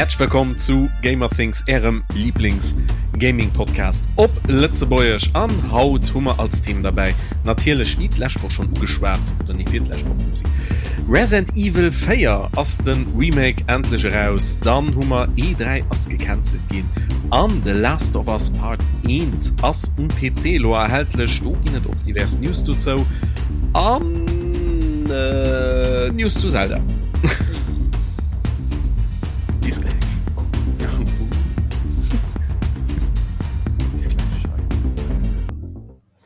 Häerzlech wëllkomm zu Gamerthings, ärem Lieblings Gaming Podcast op Lëtzebuergesch. An haut hu mer als Thema derbäi natierlech, wéi d'lescht Woch schonn ugeschwat, oder nee, fir d'lescht Woch, upsi, Resident Evil 4 ass de Remake endlech eraus. Dann hu mer E3 ass gecancelt ginn an The Last of Us Part 1 ass um PC elo erhältlech. Do ginn et och divers News dozou an News zu Zelda. Bis gläich. Bis gläich hei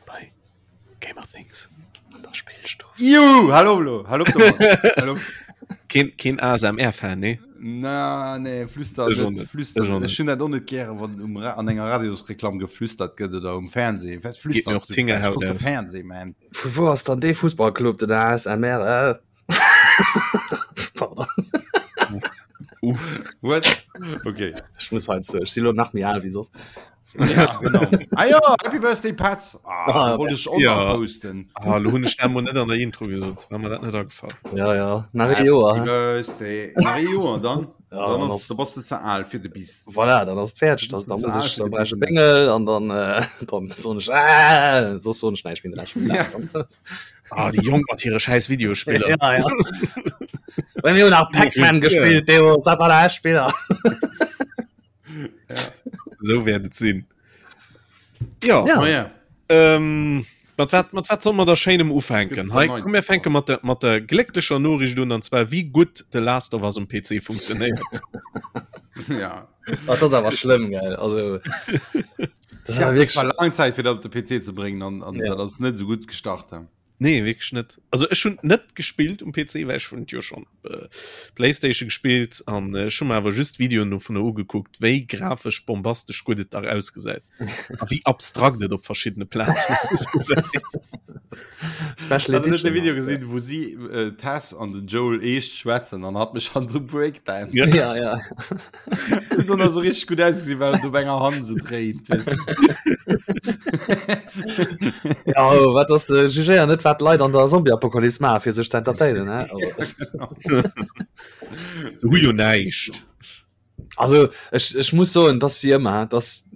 bei Gamer Things an der Spillstuff. Juhu, hallo, hallo, hallo, hallo. Keen, keen ASMR-Fan, nee? Na, nee, flüster Ech och net, net. flüster Ech och net. net. Ech hunn dat och net gären, wann um Ra an enger Radiosreklamm geflüstert gëtt oder um Fernseh. Wat Geet mir flüsters och du? d'Fingerhaut Ech kucke aus. Fernseh, man. Vu wou ass dann dee Fussballclub, den ASMR? Äh? Pardon. What? Okay. Ech muss heiansdo, ech si lo nach méi al wéi soss. Ja, genau. Ah ja, Happy Birthday, Patz. Ah, Ah, wollte ich auch ja. noch posten. Ah, lo hunn ech dat mol net an der Intro gesot, war mir dat net agefall. Ja, ja, nach ee Joer. Happy Birthday. Nach ee Joer, dann, Ja, dann dann ass, ass- da bass du ze al fir de Bis. Voilà, dann ass et fäerdeg. Das Dann, ist dann muss ze ech, al dann fir brauch ech de e Bengel an dann, äh, dann soen ech, ah, soss soen ech näischt méi den Rescht vum Dag. Ah, déi Jonk mat hire schäiss Videospiller. Ja, ja. Well mir hunn nach Pac-Man gespillt, deemools, dat war der echt Spiller. Esou wäert et sinn. Ja. Ja. Oh ja. Ähm, mat wat, mat wat soll mer da schéinem ufänken? Gëtt Hei, der komm, mir fänke mat der, mat der glécklecher Noriicht un, an zwar wéi gutt The Last of Us um PC funktionéiert. Ja. Dat ass awer schlëmm, gell? Also, das Ja, war wirklich. wirklich. War lang Zeit fir dat op de PC ze bréngen an, an Ja. dat ass net sou gutt gestart. He. Nee, wierklech net. Also ech hunn net gespillt um PC, well ech hunn jo schon äh, Playstation gespillt an äh, ech hunn mir awer just Videoen dovunner ugekuckt, wéi grafesch bombastesch gutt et dach ausgesäit a wéi abstrakt et op verschiddene Plazen ausgesäit. Special Hast du net Edition. de Video gesinn, wou si äh, Tess an den Joel eescht schwätzen an hat mech an so Breakdance. Ja. Ja, ja. Sieht dann so richtig gut ausgesehen, weil du op enger Hand so dréint. Weißt du? Ja, oh, wat ass äh, jugéier net wat Leit an der Zombie-Apokalypse maachen, fir sech ze entertainen, ne? Also, Se hu jo näischt. also ech, ech muss soen, dass wie ëmmer, dass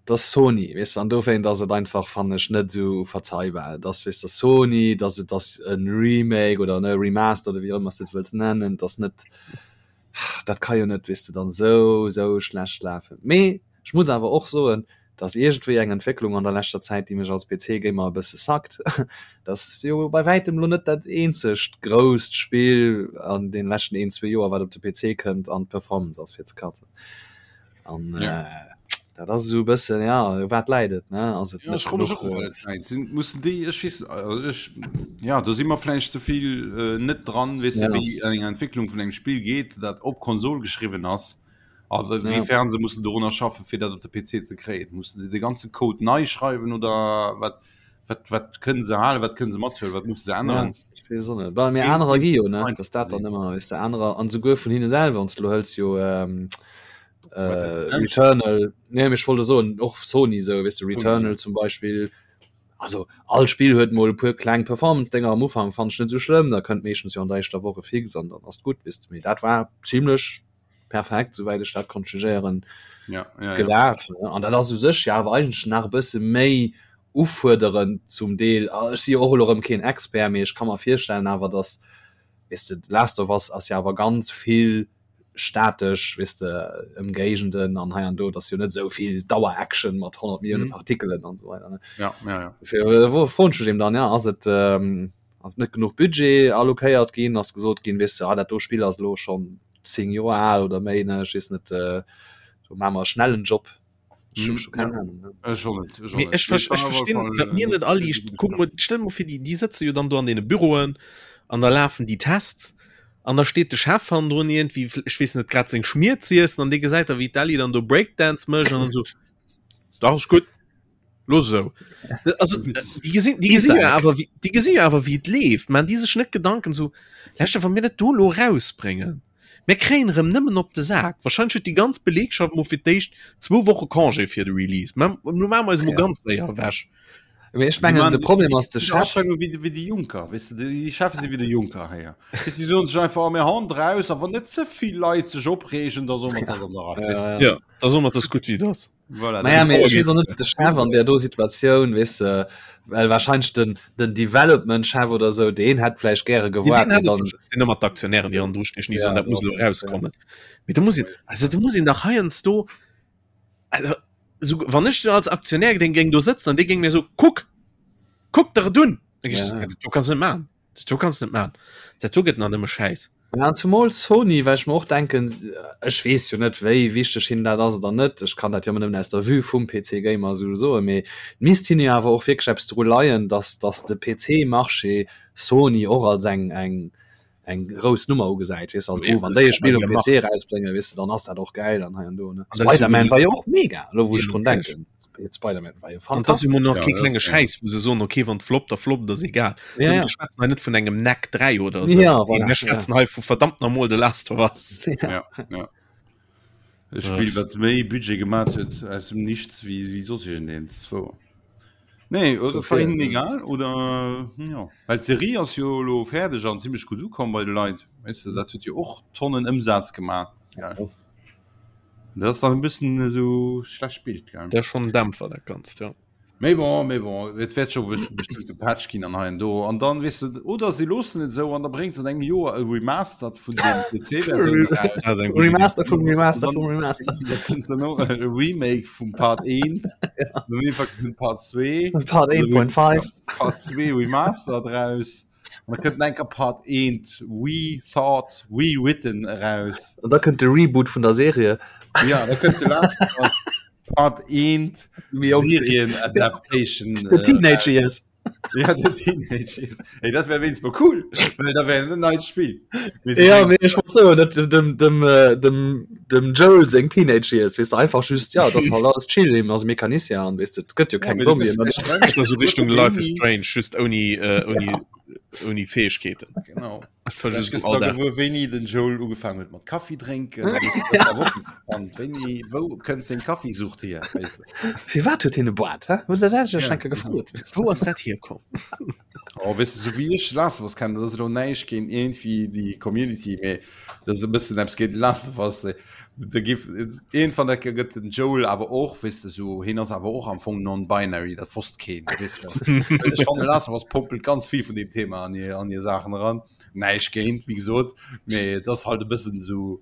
dass Sony, weess du, an dowéint ass et einfach, fannen ech, net esou verzeihbar, dass, weess du, Sony, dass et ass en Remake oder ne Remaster oder wéi och ëmmer s de et wëlls nennen, dass net dat ka jo net, weess de, dann esou, esou schlecht lafen. Mee ech muss awer och soen, dass iergendwéi eng Entwécklung an der leschter Zäit, déi mech als PC-Gamer e bësse sackt, dass jo bei wäitem elo net dat eenzegt grousst Spill an deene leschten een, zwee Joer, wat op de PC kënnt an d'Performance ass fir ze katzen. An Ja. äh, dat ass esou e bëssen, ja, u wat läit et, ne? Ass et Ja, net ech froe mech genuch, och, äh, wat et läit. Sinn, mussen déi, ech weess, also ech, ja, do si mer vläicht ze vill äh, net dran, weess du, Ja. wéi eng Entwécklung vun engem Spill geet, dat op Konsol geschriwwen ass. A Ja. wéifern se mussen dorunner schaffen, fir dat op de PC ze kréien. Mussen se de ganze Code nei schreiwen oder wat, wat, wat kënnen se halen, wat kënnen se mathuelen, wat musse se Ja, änneren? ech weess och net. Well mir Keen- anerer gi jo, ne? einfach Dass dat dann gesinn. ëmmer, weess de, anerer, an souguer vun hinne selwer, wann s de lo hëls, jo, ähm, äh, Redemption. Returnal, nee, mee ech wollt soen, och Sony sou, weess de, Returnal zum Beispill, also all Spill huet mol e puer kleng Performance-Dénger am Ufank, fannen ech net sou schlëmm, da kënnt meeschtens jo an der éischter Woch e Fix an dann ass et gutt, weess de, mee dat war zimlech perfekt, souwäit ech dat konnt jugéieren, Ja, ja, ja. gelaf, ne? An dat ass u sech jo awer eigentlech nach e bësse méi ufuerderend zum Deel. Ah, Ech si jo och elo erëm keen Expert, mee ech ka mer virstellen awer, datt, weess de, The Last of Us ass jo awer ganz vill statesch, weess de, Ëmgéigenden an hei an do, et ass jo net esou vill Dauer-Action mat 100 Millioune Mhm. Partikelen an esou weider, ne? Ja, ja, ja. Dofir äh, froen ech mech eben dann, ja, ass et, ähm, ass net genuch Budget allokéiert ginn, ass gesot ginn, weess de, ah, dat do Spill ass elo schonn 10 Joer al oder méi, ne, ech weess net, äh, do maache mer e schnellen Job. Ech hu Mhm, scho keng ja. Ahnung, ne? Ech och net, ech och Mee net. ech, ver Mee ech war op alle verstinn, Fall, wat äh, mir net aliicht. Kuck mol, stell mol fir, déi, déi sëtze jo dann do an deene Büroen an da lafen déi Tests an da steet de Chef hannendrun iergendwéi, ech weess net, grad seng Schmier z'iessen an dee gesäit da wéi d'Ellie dann do Breakdance mécht an dann esou, Dach, ass gutt, looss esou. Also déi gesinn, déi gesinn jo awer, wéi, déi gesinn jo awer wéi et leeft. Maachen déi sech net Gedanken esou, Leschter, wa mir dat do elo erausbréngen, mir kréien erëm nëmmen op de Sak. Wahrscheinlech huet déi ganz Belegschaft mol fir d'éischt zwou Woche Congé fir de Release. Mä lo maache mer eis emol Ja. ganz séier ewech. Mee ech mengen de Problem ass de Chef wéi wéi de Juncker weess de déi Chefe si wéi de Juncker héier si soen sech einfach oh, mir hauen draus a wann net ze vill Leit sech opreegen da soe mer dat an der Rei weess de. Ja, da soe mer dat ass gutt wéi et ass. Voilà, Naja, mee ech weess och net de Chef an där do Situatioun weess de well wahrscheinlech den den Development Chef oder sou deen hätt vläicht gäre gewaart mee dann sinn ëmmer d'Aktionären déi hannendru stinn déi Ja, soen dat muss du elo hast recht, ja. erauskommen. Mee do muss een also do muss een dach heiansdo also sou wann ech als Aktionär deng géing do sëtzen an dee géing mir so kuck kuck der et un da géing ech Ja. soen, dat do kanns du net maachen dat do kanns du net maachen dat do gëtt nach nëmme Schäiss. Ja, an zumol Sony, well ech mer och denken, ech weess jo net wéi wichteg hinnen dat ass oder net, ech kann dat jo ëmmer nëmmen aus der Vue vum PC Gamer esou soen, mee et misst hinne jo awer och wierklech eppes dru leien, datt datt de PC-Marché Sony och als eng eng eng grouss Nummer ugesäit, weess de, also oh wann déi e Spill um PC erausbréngen, weess de, dann ass dat och gäil an hei an do, ne. Spider-Man war jo och mega, elo wou ech drun denken, Spider-Man war jo An dat ass jo fantastesch. mol nach Ja, kee dat klenge ass geil. Schäiss, wou se soen, okay, wann et floppt, da floppt, ass egal. Ja, Mir ja. schwätzen hei net vun engem Knack 3 oder esou. Ja, Nee, voilà, mir ja. schwätzen hei vu verdammt normal The Last of Us. Ja. Ja, ja. E Spill, wat méi Budget gemaat huet aus dem Nichts wéi, wéi soss iergendeent. Dat ass wouer. Nee, oder das war Dofir, hinnen äh, egal oder ja. Well d'Serie ass jo elo fäerdeg an zimmlech gutt ukomm bei de Leit. Weess de, dat huet jo och Tonnen Ëmsaz gemaat. ja. Gell. Dat ass dann e bëssen esou schlecht Bild, gell. Dat ass schonn en Dämpfer, dat Ganzt, ja. Mee bon, mee bon, et wäert scho bestëmmt e Patch ginn an hei an do. An dann, weess de, oder si loossen et esou an da bréngt se an engem Joer e Remastered vun dem PC-Versioun eraus. Dat ass eng gutt Iddi. Remaster vum An Remaster dann vum Remaster. da kënnt dann och e Remake vum Part 1, dann iergendwann kënnt Part 2, Part 1.5. Part 2 Remastered raus. An da kënnt enker Part 1 Rethought, Rewritten eraus. An da kënnt de Reboot vun der Serie. Ja, da kënnt The Last of Us Part 1 Serien Adaptation. The Teenage Years. Ja, The Teenage Years. Ey, dat wär wéinst mol cool, well da wär en neit Spill. Ja, mee ech wollt soen, dat dem, dem, dem, dem Joel seng Teenage Years, weess de, einfach just, ja, dat ass halt alles chill, hien ass Mecanicien an weess de, et gëtt jo keng Zombien. Esou Richtung Life is Strange, just ouni, ouni, ouni Fäegkeeten. Genau. Wéini den Joel ugefaangen huet mat Kaffi drénken. Wéini, wou kënnt seng Kaffisucht hier? Firwat huet hien e Boart, hä? Hues de dat iech eng Kéier gefrot? Wou ass dat hierkomm? Oh, weess de, sou wéi ech Last of Us kennen, dat ass elo näischt géint iergendwéi déi Community, mee dat ass e bëssen eppes géint Last of Us. Da giff iergendwann da gëtt den Joel awer och, weess de, sou, hien ass awer och am Fong non-binary, dat wosst keen, weess de. Ech fannen Last of Us pompelt ganz vill vun deem Thema an hir, an hir Saachen eran. Näischt géint, wéi gesot, mee et ass halt e bëssen sou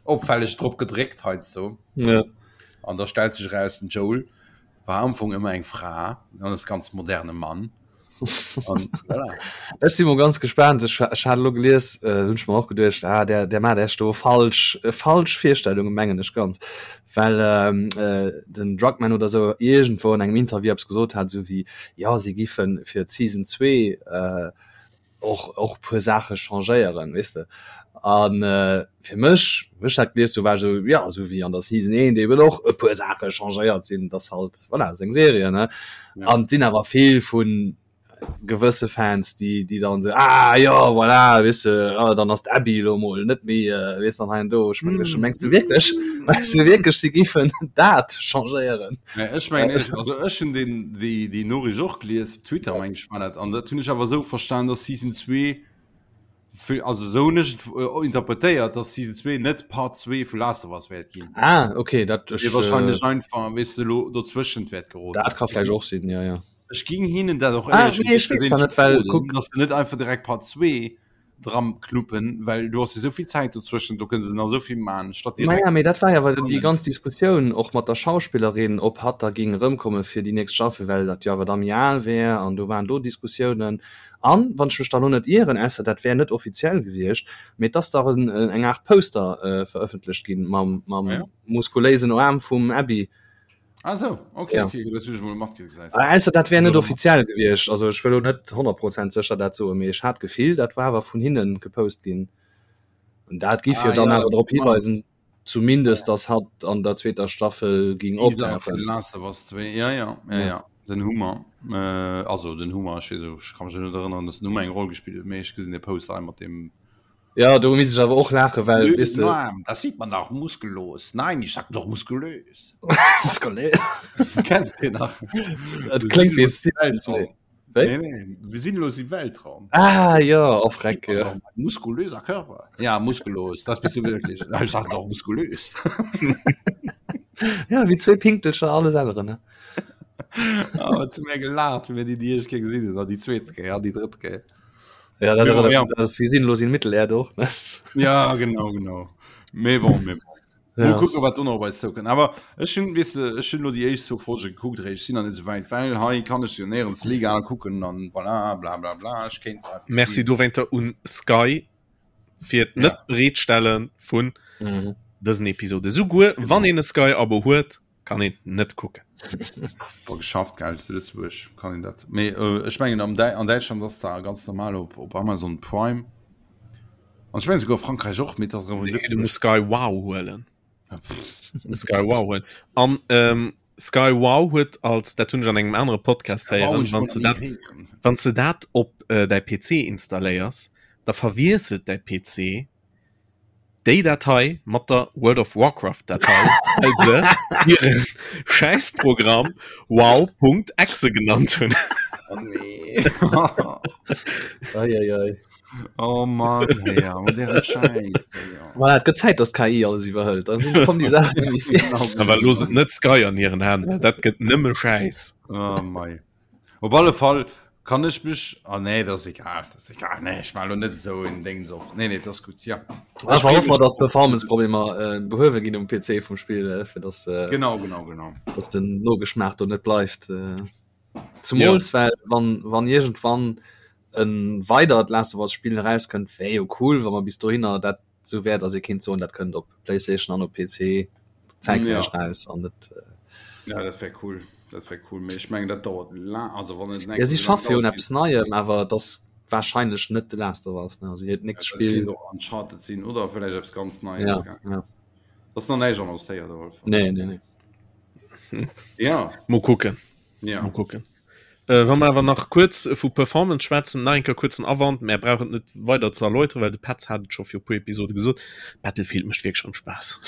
opfälleg drop gedréckt heiansdo. Ja. An da stellt sech eraus, den Joel war am Fong ëmmer eng Fra an ass ganz moderne Mann. An, voilà. Ech si mol ganz gespaant. Ech, ech hat elo gelies, äh, hunn ech mer och geduecht, ah, der, der mat echt do falsch, äh, falsch Virstellungen, mengen ech ganz. Well ähm, äh, den Druckmann oder sou iergendwou an engem Interview eppes gesot hat, sou wéi, ja, si giffen fir d'Season 2 äh, och och puer Saache changéieren weess de an äh, fir mech wéi ech dat gelies hu war ech esou ja esou wéi an der Season 1 eben och e puer Saache changéiert sinn dass halt voilà seng Serie ne Ja. an et sinn awer vill vun gewësse Fans déi déi dann esou ah jo voilà weess de ah, dann ass d'Abby elo mol net méi äh, weess an hei an do ech meng ech mengs du wierklech mengs du wierklech si giffen dat changéieren Nee, ech mengen ech, also ech hunn den déi déi Noriicht och gelies op Twitter meng ech war dat an dat hunn ech awer esou verstan, dass Season 2 fir also esou hunn ech et äh, interpretéiert, dass Season 2 net Part 2 vu Last of Us wäert ginn. ah okay dat ech Mee wahrscheinlech einfach weess de lo dozwëschent wäert geroden. dat ka vläicht och sinn ja ja Ech ging hinnen dat och Ah, éierlech nee, ech weess dat net, well kuck- dass se net einfach direkt Part 2 dran knuppen, well du hast jo souvill Zäit dozwëschen, do kënne se nach souvill man statt direkt. Naja, mee dat war jo awer déi ganz Diskussioun och mat der Schauspillerin, ob hatt da géing erëmkomme fir déi nächst Staffel, well dat jo awer da méi al wär an do waren do Diskussiounen. An, wann ech mech da lo net ieren, ausser dat wär net offiziell gewiescht, mee et ass dach en eng Aart Poster verëffentlecht ginn mam mam Ah ja? muskuléisen Aarm vum Abby. Ah so, okay, Ja. okay, dat hunn ech mol matkritt, gesäis. Ah, Ausser dat wär net offiziell gewiescht, also ech wëll lo net 100 Prozent sécher dat soen, mee ech hat d'Gefill, dat war awer vun hinnen gepost ginn. An dat giff Ah, jo dann ja, awer drop genau. hiweisen, zumindest, dass hatt an der zweeter Staffel ging Teaser optauchen. vun Last of Us 2, ja, ja, ja, Ja. ja. Den Hummer, äh, also den Hummer, ech weess, ech ka mech net erënneren, dass den Hummer eng Roll gespillt huet, mee ech gesinn de Poster hei mat dem. Ja, do misst ech awer och laachen, well Nö, weess de. Arm, das sieht man doch muskellos. Nein, ich sag doch muskulös. Muskulös. Kennst du den nach? Et kléngt wéi Sims. Wéi? Nee, nee, wir sind los im Weltraum. Ah ja, oh Freck, ja. Muskulöser Körper. Ja, muskulös, das bist du wirklich. Ich sag doch muskulös. Ja, wéi zwee Pinktelcher alles änneren, ne? Oh, zu mir gelacht, wie mir die die erste Kéier gesinn hunn, an déi zweet Kéier, an déi drëtt Kéier. Ja, dat, Ja, ja. dat ass wie sinnlos in Mittelerde och, ne? Ja, genau, genau. Mee bon, mee bon. Ja. Mal kucken, wat do nach op eis zoukënnt. Awer ech hunn, weess de, ech hunn elo déi éischt zwou Folge gekuckt, ech sinn nach net esou wäit, well hei kann ech se jo néierens legal kucken an voilà, bla bla bla, ech kéint se einfach Merci streamen. dowéinter un Sky fir Ja. net bereetstelle vun Mhm. dësen Episode. Souguer wann een e Sky-Abo huet, kann een net kucken. War geschafft gell zu Lëtzebuerg kann een dat. Mee äh, ech mengen am Dä an Däitschland ass da ganz normal op, op Amazon Prime. An ech mengen souguer Frankräich och, mee dat ass Nee, du muss Sky Wow huelen. Sky Wow huelen. An ähm, Sky Wow huet als dat hunn ech an engem anere Podcast héieren, wann s de dat wann s de dat op äh, däi PC installéiers, da verwiesselt däi PC déi Datei mat der World of Warcraft Datei, well se hiren Schäissprogramm wow.exe genannt hunn. Oh nee. Ei, ei, ei. Oh Mann, hey, ja, mat deren Schäiss. Voilà, et gëtt Zäit, dass d'KI alles iwwerhëlt. Dann sinn kommen déi Saachen net méi vir. Awer looss et net Sky an hiren Hänn, well dat gëtt nëmme Schäiss. Oh mei. Op alle Fall kann ech mech ah nee dat ass egal dat ass egal nee ech maache lo net esou en Déngs op nee nee dat ass gutt ja. Ech hoffe mer dass d'Performance-Problemer äh, behuewe ginn um PC vum Spill äh, fir dass äh, Genau genau genau. dass den Nogeschmaach do net bleift. Äh, zumools ja. well wann wann iergendwann en weidert Last of Us Spill erauskënnt, wär jo cool, wa mer bis dohinner dat sou wär, dass ee kéint soen, dat kënnt op PlayStation an op PC zäitgläich Ja. raus an net äh, Ja dat wär cool dat wär cool mee ech mengen dat dauert laang also wann et Ja, si schaffe jo un eppes Neiem, awer et ass wahrscheinlech net The Last of Us, ne? Also hiert nächst Spill. Spill och Uncharted sinn oder vläicht eppes ganz Neies Ja, gell? ja. Ass nach näischt annoncéiert op alle Fall. Nee, nee, nee. Ja Mol kucken. ja. Mol kucken. Äh, wa mer awer nach kuerz vu Performance schwätzen, nach eng Kéier kuerzen Awand, mär brauchen et net weider ze erläuteren, well de Petz hat et scho viru puer Episode gesot, Battlefield mécht wierklech erëm Spaass.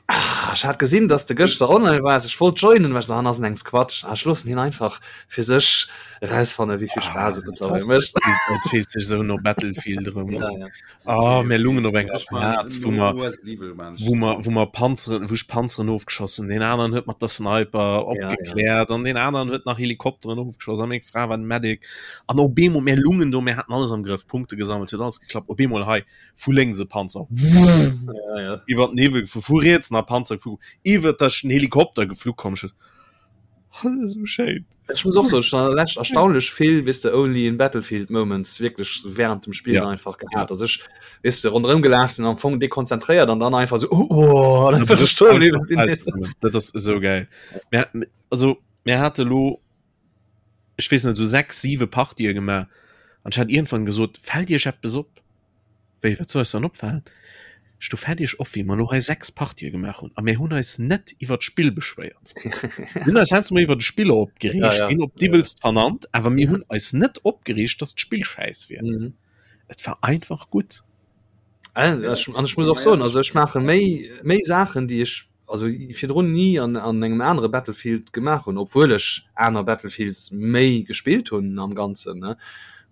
Ah, ech hat gesinn, dass de gëschter online waars. Ech wollt joinen, war ech so, ah, ass en engs Quatsch. Ah, ech loossen hien einfach fir sech erausfannen, wéi vill Spaass et mëttlerweil mécht. Et fillt sech esou no Battlefield erëm un. Ja, ja. Ah, mir lungen op enger Plaz, wou mer, wou mer, wou mer Panzeren, wou ech Panzeren ofgeschoss hunn. Deen aneren huet mat der Sniper opgekläert an deen aneren huet nach Helikopteren ofgeschoss a meng Fra war den Medic. An op eemol, mir lungen do, mir haten alles am Grëff, Punkte gesammelt, huet alles geklappt. Op eemol hei vu lénks e Panzer, iwwer den Hiwwel gefu, vu riets nach Panzer gefu, iwwer der den Helikopter geflu komm. Ech Dat ass esou schéin. Ech muss och soen, ech hunn an der Lescht erstaunlech vill, weess de, only in Battlefield Moments wierklech während dem Spillen Ja. einfach gehat, dass ech, weess de, ronderëm gelaf sinn, am Fong dekonzentréiert an dann einfach esou, oh, oh, an einfach stoe bliwwe sinn, weess de. Dat ass esou geil. Mir, also, mir hate lo, ech weess net, esou 6, 7 Partië gemaach an ech hat iergendwann gesot, Fält Iech eppes op? Wéi, wat soll eis dann opfalen? Ech do fält iech op, wéi mer elo hei 6 Partië gemaach hunn a mir hunn eis net iwwer d'Spill beschwéiert. Mir hunn eis heiansdo mol iwwer de Spiller opgereegt, Ja, ja. een op d'iwwelst vernannt, awer mir hunn eis net opgereegt, dass d'Spill schäiss wier. Mhm. Et war einfach gutt. An ech, an ech muss och soen, also ech maache méi, méi Saachen, déi ech also virdrun ni an, an engem anere Battlefield gemaach hunn, obwuel ech aner Battlefields méi gespillt hunn am Ganzen, ne.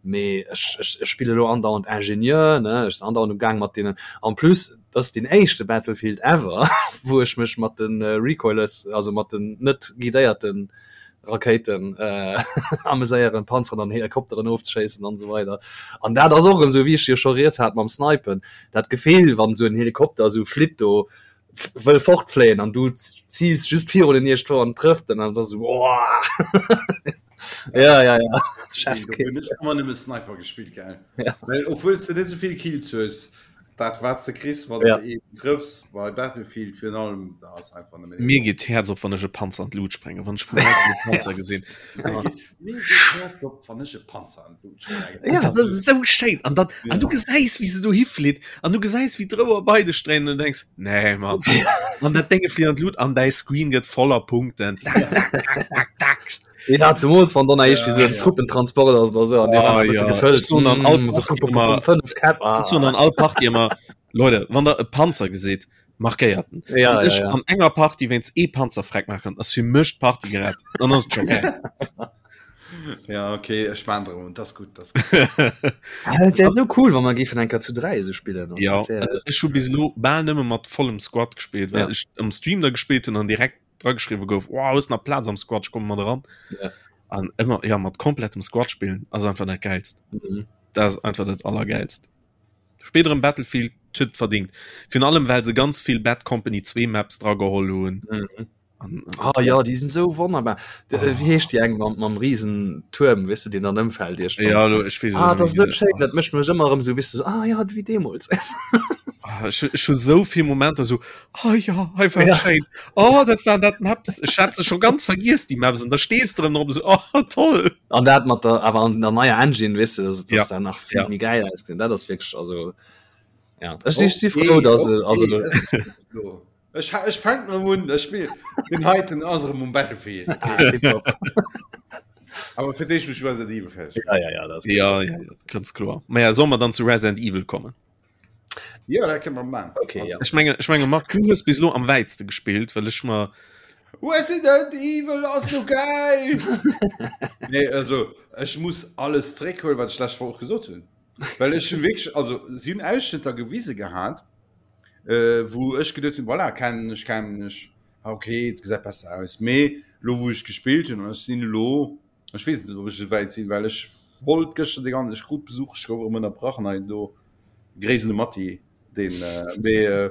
Mee ech, ech, ech spille lo andauernd Ingenieur, ne, ech sinn andauernd um Gaang mat deenen, en plus, dat ass deen éischte Battlefield ever, wou ech mech mat de Recoilless, also mat den net guidéierte Rakéiten äh, ameséieren, Panzeren an Helikopteren ofzeschéissen an esou weider. An dat ass och erëm esou, wéi ech jo scho rieds hat mam Snipen, dat Gefill, wann esou en Helikopter esou flitt do, wëll fortfléien an du ziils just virun den iergendwou an trëfft en an da so oh! ja ja ja Chefskiss. Ëmmer nëmme Sniper gespillt gell ja. Well obwuel du net souvill Kills hues dat wat du kriss wann ja. du eben trëffs bei Battlefield virun allem da ass einfach nëmme Mir geet d'Häerz op wann ech e Panzer an d'Lut sprengen wann ech vu wäitem e Panzer gesinn. Mir geet d'Häerz op wann ech e Panzer an d'Lut sprengen. Ja. Dat ass esou schéin an dann an du gesäis wéi se dohi flitt an du gesäis wéi d'Rouer bei dech dréinen an du denks nee Mann an dat Dénge flitt an d'Lut an däi Screen gëtt voller Punkten. Tak, tak, tak, tak, tak. Ja, zemools wann dann eich wie so en Truppentransport ass oder so an dee war e bësse gefëllt. Ech soen an all Partie ëmmer, ech soen an all Partie ëmmer, Leute, wann der e Panzer gesitt, markéiert en. Ja, Wann ja, ech ja. an enger Partie wéinst ee Panzer freck maachen, ass fir mech d'Partie gerett. Dann ass et scho geil. Ja, okay, ech maan der un, das gut, das gut. Ah, dat wär sou cool, wann mer géifen eng Kéier zu 3 esou spillen. Also, Ja, dat wär- also ech hu bis elo bal nëmme mat vollem Squad gespillt, well Ja. ech am Stream da gespillt hunn an direkt drageschriwwe gouf, wow, hues nach Plaz am Squad, ech komme mat eran. Ja. An ëmmer, ja, mat komplettem Squad spillen ass einfach dat Geilst. Mhm. Dat ass einfach dat Allergeilst. Spillt erëm Battlefield, huet et verdingt. Virun allem, well se ganz vill Bad Company 2 Maps drageholl hunn. Mhm. An, Ah ja, déi sinn sou wonnerbar. De, Ah. äh, Wéi heescht déi eng mam, mam riesen Tuerm, weess de, deen dann ëmfält iergendwann? ja, lo, ech weess Ah, et dat ass net sou schéin, dat mécht mech ëmmer erëm sou, weess de, sou, ah ja, wéi deemools. Ah, ech, ech hu sou vill Momenter sou, oh ja, hei war Ja. schéin. Oh, dat waren dat Maps. Ech hat se scho ganz vergiess, déi Maps. An da stees de erëm drop, sou, oh, toll. An dat mat der, awer an der neier Engine, weess de, dass, dass Ja. dat nach vill Ja. méi gäil ausgesinn. Dat ass wierklech, also, ja. Ech si, si frou, dass, okay, also, okay. Ech, ech fänk erëm un, ech spill den heiten ass erëm um Battlefield. ah, tipptopp. Awer fir d'éischt muss ech Resident Evil fäerdeg Ja, ja, ja, dat ass Ja, ja, ja, ganz kloer. Ma ja, soll mer dann zu Resident Evil kommen? Ja, dat kënne mer man. Okay, ja. Ech menge, ech menge Marc, du hues bis elo am wäitste gespillt, well ech mer Resident Evil ass so geil! Nee, also ech muss alles zréckhuelen, wat ech d'lescht Woch och gesot hunn. Well ech hunn wierklech, also si hunn Ausschnëtter gewise gehat, äh, wou ech geduet hunn, voilà, kennen ech, kennen ech, ah, okay, et gesäit besser aus. Mee lo wou ech gespillt hunn, an ech sinn elo, ech weess net, ob ech esou wäit sinn, well ech wollt gëschter de ganzen, ech krut Besuch, ech gouf erëm ënnerbrach an hei an do. Gréiss un de Matti, deen, äh, mee äh,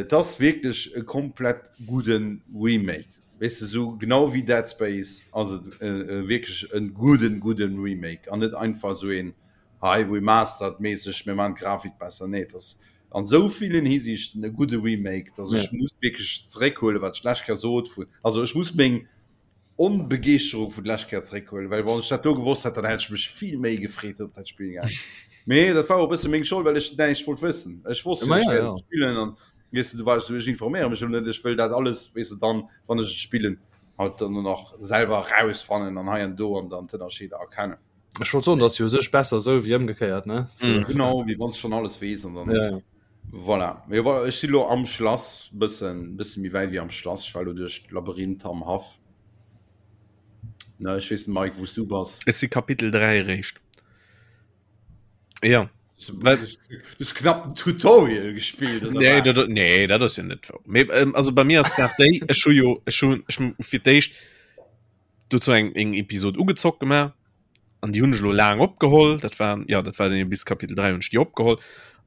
et ass wierklech e komplett gudde Remake. Weess de, sou genau wéi Dead Space ass et wierklech e gudden, gudden Remake an net einfach sou een hei Remastered mässeg, mir maachen d'Grafik besser. Nee, et ass an sou villen Hisiichten e gudde Remake, dass ech muss wierklech zeréckhuelen, wat ech d'lescht Kéier sot vun, also ech muss meng Onbegeeschterung vun d'lescht Kéier zeréckhuelen, well wann ech dat do gewosst hätt, dann hätt ech mech vill méi gefreet op dat Spill gehat. Mee dat war och e bësse meng Schold, well ech näischt wollt wëssen. Ech wosst jo, ech wäert et spillen an weess de, du war ech sou, ech informéiere mech elo net, ech wëll dat alles, weess de, dann, wann ech et spillen, halt dann och nach selwer erausfannen an hei an do an dann d'Ënnerscheeder erkennen. Ech wollt soen, dat ass jo u sech besser esou wéi ëmgekéiert, ne? So. Mm. Genau, wéi wann s de schonn alles weess an dann. Ja, ja. Voilà. Mee voilà, ech si lo am Schlass, bëssen, bësse méi wäit wéi am Schlass. Ech war lo duerch d'Labyrinth am Haff. Ne, ech weess net, Mike, wou s du bass. Ech si Kapitel 3 eréischt. Ja. Du hast knapp ein Tutorial gespielt oder Nee, wat? dat, nee, dat ass jo net wou. Mee, ähm, also bei mir ass d'Saach déi, ech hu jo, ech hu, ech hu fir d'éischt dozou eng, eng Episod ugezockt gemaach an déi hunn ech elo laang opgeholl. Dat war, ja, dat war dann jo bis Kapitel 3 hunn ech déi opgeholl.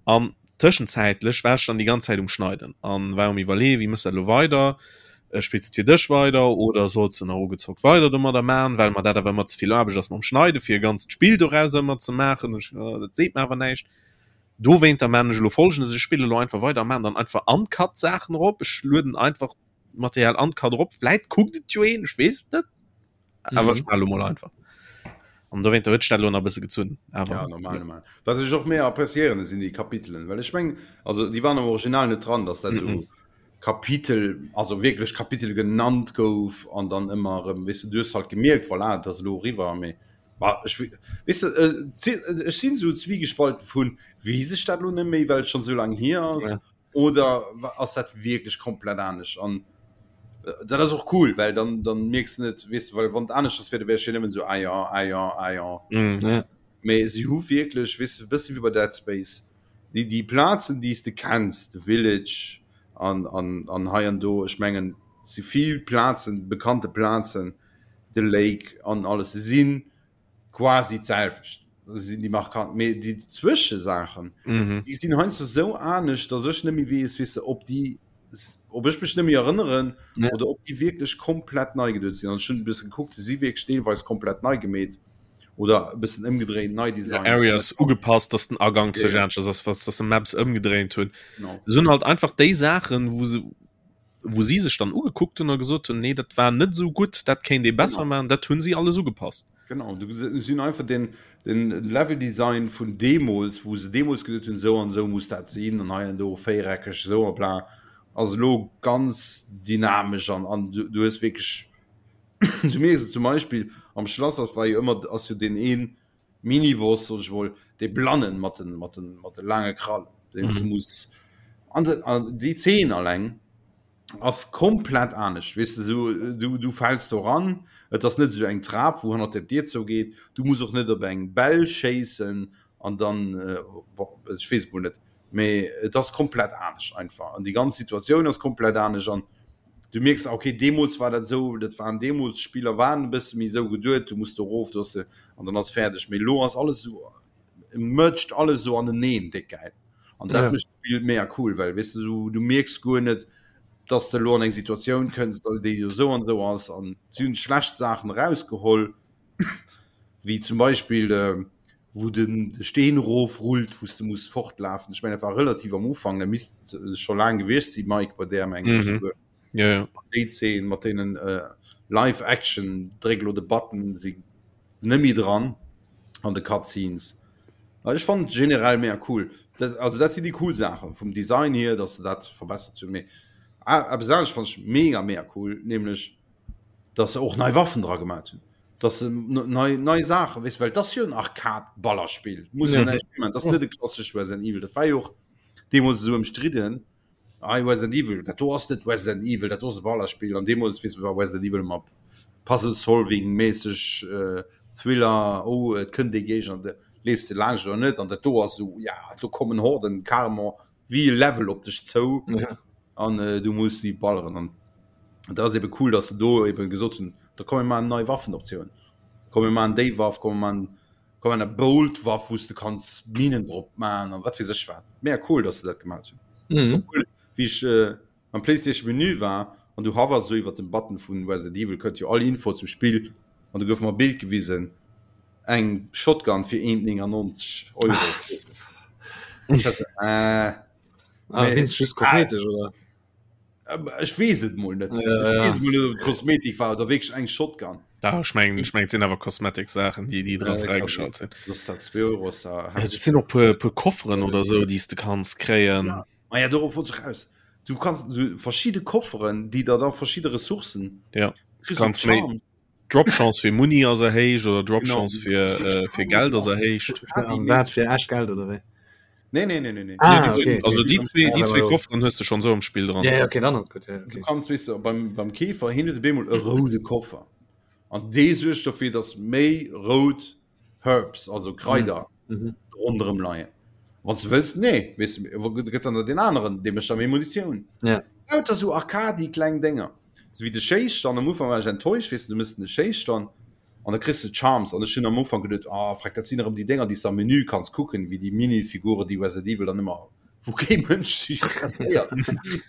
An tëschenzäitlech war ech dann déi ganz Zäit um Schneiden an war um iwwerleeën, wéi mëss dat elo weider? Äh, spills de fir dech weider oder solls de nach ugezockt weider domadder man, well mer dat awer ëmmer ze vill Aarbecht ass mam Schneide fir e ganzt Spill doraus ëmmer ze maachen. Ech, äh, dat seet mer awer näischt. Dowéinter man ech elo Folgendes, ech spille elo einfach weider a man dann einfach uncut Saachen erop. Ech lueden einfach Material uncut erop. Vläit kuckt et jo een, ech weess et net. Awer ech Mhm. man elo mol einfach. An dowéinter huet sech dat elo nach e bësse gezunn. Awer Ja, normal, normal. Wat ech och méi appréciéieren, sinn déi Kapitelen, well ech meng, also déi waren am Original net dran, dass dat Mhm. esou Kapitel, also wierklech Kapitel genannt gouf an dann ëmmer erëm, weess de, du hues halt gemierkt, voilà, et ass elo eriwwer, mee bah, ech weess de, ech sinn esou zwiegespalten vun, weess ech dat elo net méi, well et schonn esou laang hier ass, Ja. oder ass dat wierklech komplett anescht an dat ass och cool, well dann, dann mierks de net, weess de, well wann et aneschters wier, da wär ech jo nëmmen esou, ah jo, ah jo, ah jo. Mm. Ja. Mee si hu wierklech, weess de, e bësse wéi bei Dead Space, déi déi Plazen déi s de kenns, de Village an an an hei an do, ech mengen et si vill Plazen, bekannte Plazen, de Lake an alles, se si quasi d'selwecht, se sinn déi markant, mee déi Zwëschesaachen, déi sinn heiansdo esou anescht, datt ech net méi weess, weess de, ob déi, ob ech mech net méi erënneren oder ob déi wierklech komplett nei geduet sinn. An ech hunn e bësse gekuckt, se si wierklech deelweis komplett nei gemeet. oder e bëssen ëmgedréint, nei designt. Areas ugepasst, dass den Agang zu Ja. aneschters ass, was dass se Maps ëmgedréint hunn. Genau. Se hunn halt einfach déi Saachen, wou se wou si sech dann ugekuckt hunn a gesot hunn, nee, dat war net esou gutt, dat kéint ee besser Genau. maachen, dat hunn si alles ugepasst. Genau, du si hunn einfach den, den Level-Design vun deemools, wou se deemools gesot hunn, esou an esou muss dat sinn an hei an do véiereckeg esou a bla, ass elo ganz dynamesch an, an du, du hues wierklech. Du mierks et zum Beispill am Schlass ass war jo ëmmer ass jo deen een Miniboss soll ech mol dee Blannen mat den mat den mat de laange Krallen deen s du muss an de an déi Zeen alleng ass komplett anescht weess de sou du du fäls do ran et ass net esou eng Trap wou hannert der Dier zougeet du muss och net op eng Bell schéissen an dann bon ech weess et mol net mee et ass komplett anescht einfach an déi ganz Situatioun ass komplett anescht an du mierks okay deemools war dat esou, dat waren deemools d'Spiller waren e bësse méi esou geduet, du muss do erof, do ass de an dann ass fäerdeg, mee elo ass alles esou merged alles esou aneneen, déck gäil an dat mécht d'Spill mega cool, well weess de esou du mierks guer net, dass de elo an eng Situatioun kënns, déi esou an esou ass an si hunn schlecht Saachen erausgeholl wéi zum Beispill wou den de Steen erof rullt, wou s de muss fortlafen. Ech mengen dat war relativ am Ufank, dat misst scho laang gewiescht si Mike bei där mengen ech souguer. Ja, ja. Déi Zeen mat deenen Live Action dréck elo de Button si net méi dran an de Cutscenes. Ech fannen et generell mega cool. Dat, also dat sinn déi cool Saachen vum Design hier, datt se dat verbessert hunn. Mee eppes anescht fannen ech mega mega cool, nämlech datt se och nei Waffen dra gemat hunn. Dass se nei, nei Saachen, weess, well dat ass jo en Arcade-Ballerspill, muss jo näischt virman, dat ass net e klassescht Resident Evil. Dat war jo och deemools esou ëmstridden, Ei, Resident Evil, dat do ass net Resident Evil, dat do ass e Ballerspill. An deemools, weess, war Resident Evil ëmmer Puzzle-Solving-méisseg, Thriller, oh, et kënnt ee Géigner, de leefs de laanscht oder net. An dat do ass esou, ja, do kommen Horden carrément wéi e Level op dech zou an du muss si balleren. An dat ass ebe cool, dass se do ebe gesot hunn, da komm mir maachen nei Waffenoptioun, komm mir maachen déi Waff, komm mir maachen, komm mir maachen eng Bolt-Waff, wou s de kanns Minen drop maachen an wat weess ech wat. Mega cool, dass se dat gemaach hunn. Obwuel, wéi ech am PlayStation Menü war an du hovers esou iwwert dem Button vun Resident Evil, kënnt jo all Info zum Spill an du gouf mer e Bild gewisen, eng Shotgun fir 1,99 Euro. Ech war so, äh, Ah, nee. Wéinst just kosmetesch, oder? Ech weess et mol net. Ja, Ech ja. weess mol net, ob et Kosmetik war oder wierklech eng Shotgun. Da, ech mengen, ech mengen, et sinn awer Cosmetic-Saachen, déi, déi dra Äh, kann fräigeschalt sinn. Soss dat 2 Euro ass da Ja, et sinn och puer, puer Kofferen oder sou, déi s de kanns kréien. Ja. Ma ja, dorop wollt ech raus. Du kanns so verschidde Kofferen, déi der da verschidde Ressourcen. Ja. Kriss Kanns du méi- Charms. Dropchance fir Muni ass erhéicht oder Dropchance Genau. fir, äh, fir Geld ass erhéicht. An dat fir echt Geld oder wéi? Nee, nee, nee, nee, nee. Ah, Nee, okay, okay. Also déi zwee, déi Ja, zwee aber- Kofferen hues de schon sou am Spill dran. Ja, ja, okay, dann ass gut. Ja, Du okay. kanns, weess de, beim, beim Käfer hin huet op eemol e roude Koffer. An dee suergt dofir, dass méi rout Herbs, also Kraider, Mhm. ronderëm leien. Wann du wëlls, nee, weess de, wo gëtt dann der den aneren, dee mécht da méi Munitioun. Ja. Lauter sou Arcadi kleng Dénger. Sou wéi de Schéisstand, am Ufank war ech enttäuscht, weess de, du mëss de Schéisstand an da kriss de Charms an ech hunn am Ufank geduet, ah freck, dat sinn erëm déi Dénger, déi s de am Menü kanns kucken, wéi déi Minifiguren, déi Resident Evil dann ëmmer, wou kee Mënsch sech interesséiert.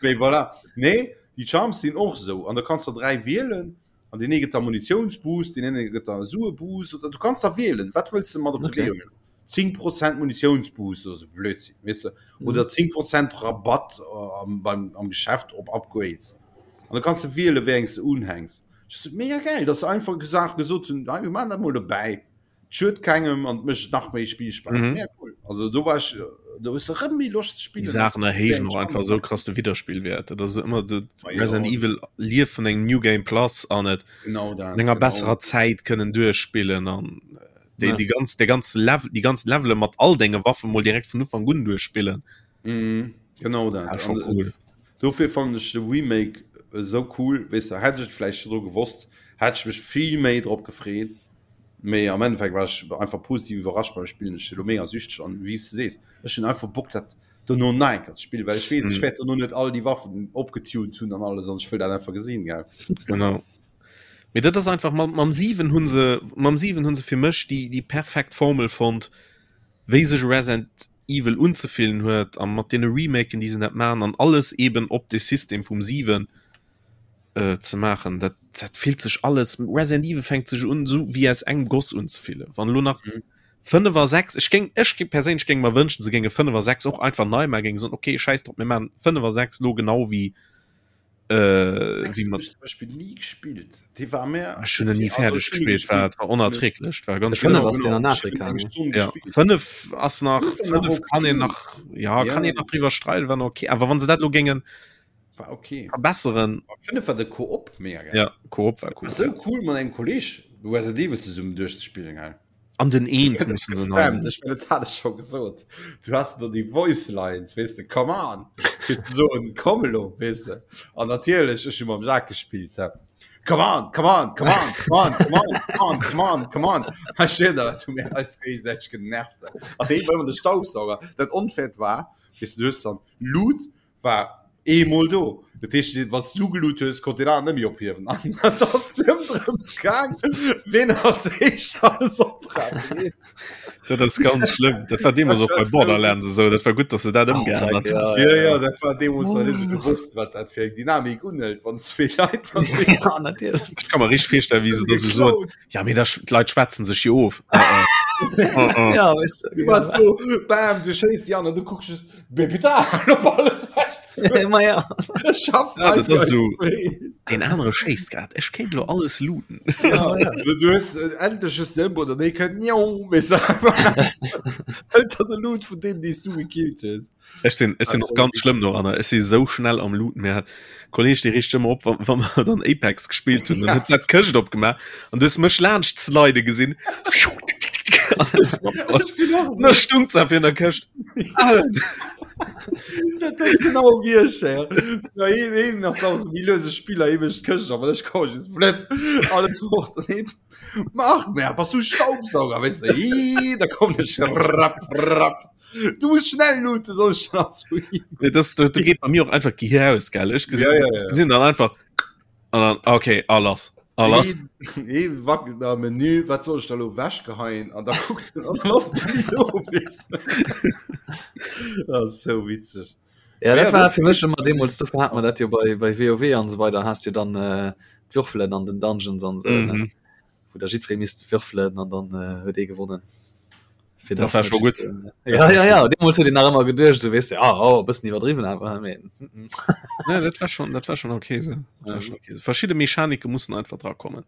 Mee voilà. Nee, déi Charms sinn och sou an da kanns de der 3 wielen An deen ee gëtt der Munitiounsboost, deen ene gëtt der Sueboost oder du kanns da wielen, wat wëlls de mat op de Okay. Wee huelen. 10 Prozent Munitiounsboost oder sou Blödsinn, weess de. Mhm. Oder 10 Prozent Rabatt äh, am, beim, am Geschäft op Upgrades. An da kanns de wielen, wéi eng s de unhänks. Das ist mega geil, dass se einfach gesagt, gesot hunn, "Hei, mir maachen dat mol dobäi. Schued kengem an mécht nach méi Spillspaass. Mhm. Mega cool. Also do war ech, do hues de rëm méi Loscht ze Déi spillen. Saachen erhéijen och einfach esou krass de Widderspillwäert. Dat ass ëmmer de Ma jo. Resident Evil lieft vun engem New Game Plus an et Genau dat. an enger genau. besserer Zäit kënnen duerchspillen an déi, Ja. déi ganz, déi ganz Level, déi ganz Levele mat all denge Waffe mol direkt vun Ufank un duerchspillen. Mhm. Genau dat. Ja, schon An, äh, cool. Dofir fannen ech de Remake esou cool, weess de, hätt ech et vläicht virdru gewosst, hätt ech mech vill méi drop gefreet, mee am Endeffekt war ech einfach positiv iwwerrascht beim Spillen. Ech si lo mega süchteg an wéi s de sees, ech hunn einfach Bock dat dono nach eng Kéier ze spillen, well ech weess, ech wäert dono net all déi Waffen opgetuned hunn an alles an ech wëll dat einfach gesinn, gell. Genau. Mee dat ass einfach, mam, mam 7 hunn se, mam 7 hunn se fir mech déi, déi perfekt Formel fonnt, wéi sech Resident Evil unzefillen huet a mat deene Remaken déi se net maachen an alles eben op de System vum 7 äh, ze maachen, dat, dat fillt sech alles, Resident Evil fänkt sech un sou wéi aus engem Goss unzefillen. Wann elo nach Mhm. 5 a 6, ech géing, ech géing perséinlech géing mer wënschen, se géinge 5 a 6 och einfach nei maachen, géinge soen, okay, schäiss drop, mir maachen 5 a 6 lo genau wéi äh, Sechs wéi hunn mat ech zum Beispill ni gespillt. Dee war mir Ech hunn en ni also fäerdeg ech hunn e gespillt, war gespillt. war onerträglech, war ganz De fënnef schlimm. ass deen an Genau, ech hunn Afrika, eng ne? Stonn Ja, gespillt. 5 ass nach Fënnef war nach 5 kann een okay. nach ja, Ja. kann een nach driwwer streiden, war nach okay. Awer wann se dat lo géingen. War okay. Verbesseren. Finde war de Koop mega geil. Ja, Koop war cool. So cool mat engem Kolleg Resident Evil zesummen duerchzespillen gell. An den Eent mussen se neu. Ech meine, dat hat ech scho gesot. Du hast do déi Voice Lines, weess de, come on! Fir ze soen, komm elo, weess de. An natierlech, ech hu mam Jacques gespillt, hä. Come on, come on, come on, come on, come on, come on, come on, come on. Hei steet da, dat hu mir eis géigesäiteg genervt. An dee war ëmmer de Staubsauger. Dat Onfairt war, weess de, du hues dann Loot, war eemol do. Dat heescht, wann s du geloot hues, konnt deen aneren net méi ophiewen. An et ass nëmmen drëms gaang, ween als éischt alles opraapt. Dat ass ganz schlëmm. Dat war deemools och bei Borderlands esou. Dat war gutt, datt se dat ëmgeännert hunn. Jo, jo, dat war deemools nach net esou gewosst, wat dat fir eng Dynamik unhëlt, wann zwee Leit Ja, natierlech. Ech ka mer richteg virstellen, wéi se da sou soen, Ja, mee da, d'Leit schwätzen sech jo of. Ja, weess du. Du bass so, bam, du schéiss déi an an du kucks just, Mee putain, op alles wech Ma ja. Schaff ja, dat ass so. Den anere schéisst grad. Ech kéint lo alles looten. Ja, ja. Du, du hues äh, endlech just den Ëmbau, nee kënnt njong, weess du. Ënter de Loot vun deenen, déi s du gekillt hues. Ech sinn, ech sinn och ganz schlëmm doranner. Ech si sou schnell am Looten. Mir hat Kolleg, dee richt ëmmer op, wa, wa mer dann Apex gespillt hunn. Dann huet se d'Këscht opgemaach an du hues mech laanscht slide gesinn. Da stung ze fir der Këscht. Dat ass genau wie ech. Ja, een, een ass auch so wie löse Spieler eben Këscht, aber ech komm just flip alles fort an eben. Mach mehr, bass du Staubsauger, weißt du? Ii, da komm ich rapp, rapp. Du musst schnell looten, soll ich dann zu ihm. Nee, das, du, du geht bei mir auch einfach Gehir aus, gell? Ich gesehen, ja, ja, ja. gesehen dann einfach an dann, okay, alles. Alles. Ee wackelt am Menü, wat soll ech da lo wechgeheien? An da kuckt en an dann ass den do, weess de. Dat ass sou witzeg. Ja, dat war fir mech ëmmer deemools, dofir hat mer dat jo bei, bei WoW an esou weider, has du dann äh, d'Würfelen an den Dungeons an esou, ne? Mhm. Wou da jiddweree misst würfelen an dann äh, huet ee gewonnen. Fir Dat dass war net scho gutt. jiddwereen- Ja, ja, ja, deemools huet een nach ëmmer geduecht, esou weess de, ah, oh, e bëssen iwwerdriwwen awer, mee, mm, mm. Nee, dat war schon, dat war schon okay so. Dat war Mhm. schon okay. Verschiedene Mechanike mussen einfach dra kommen.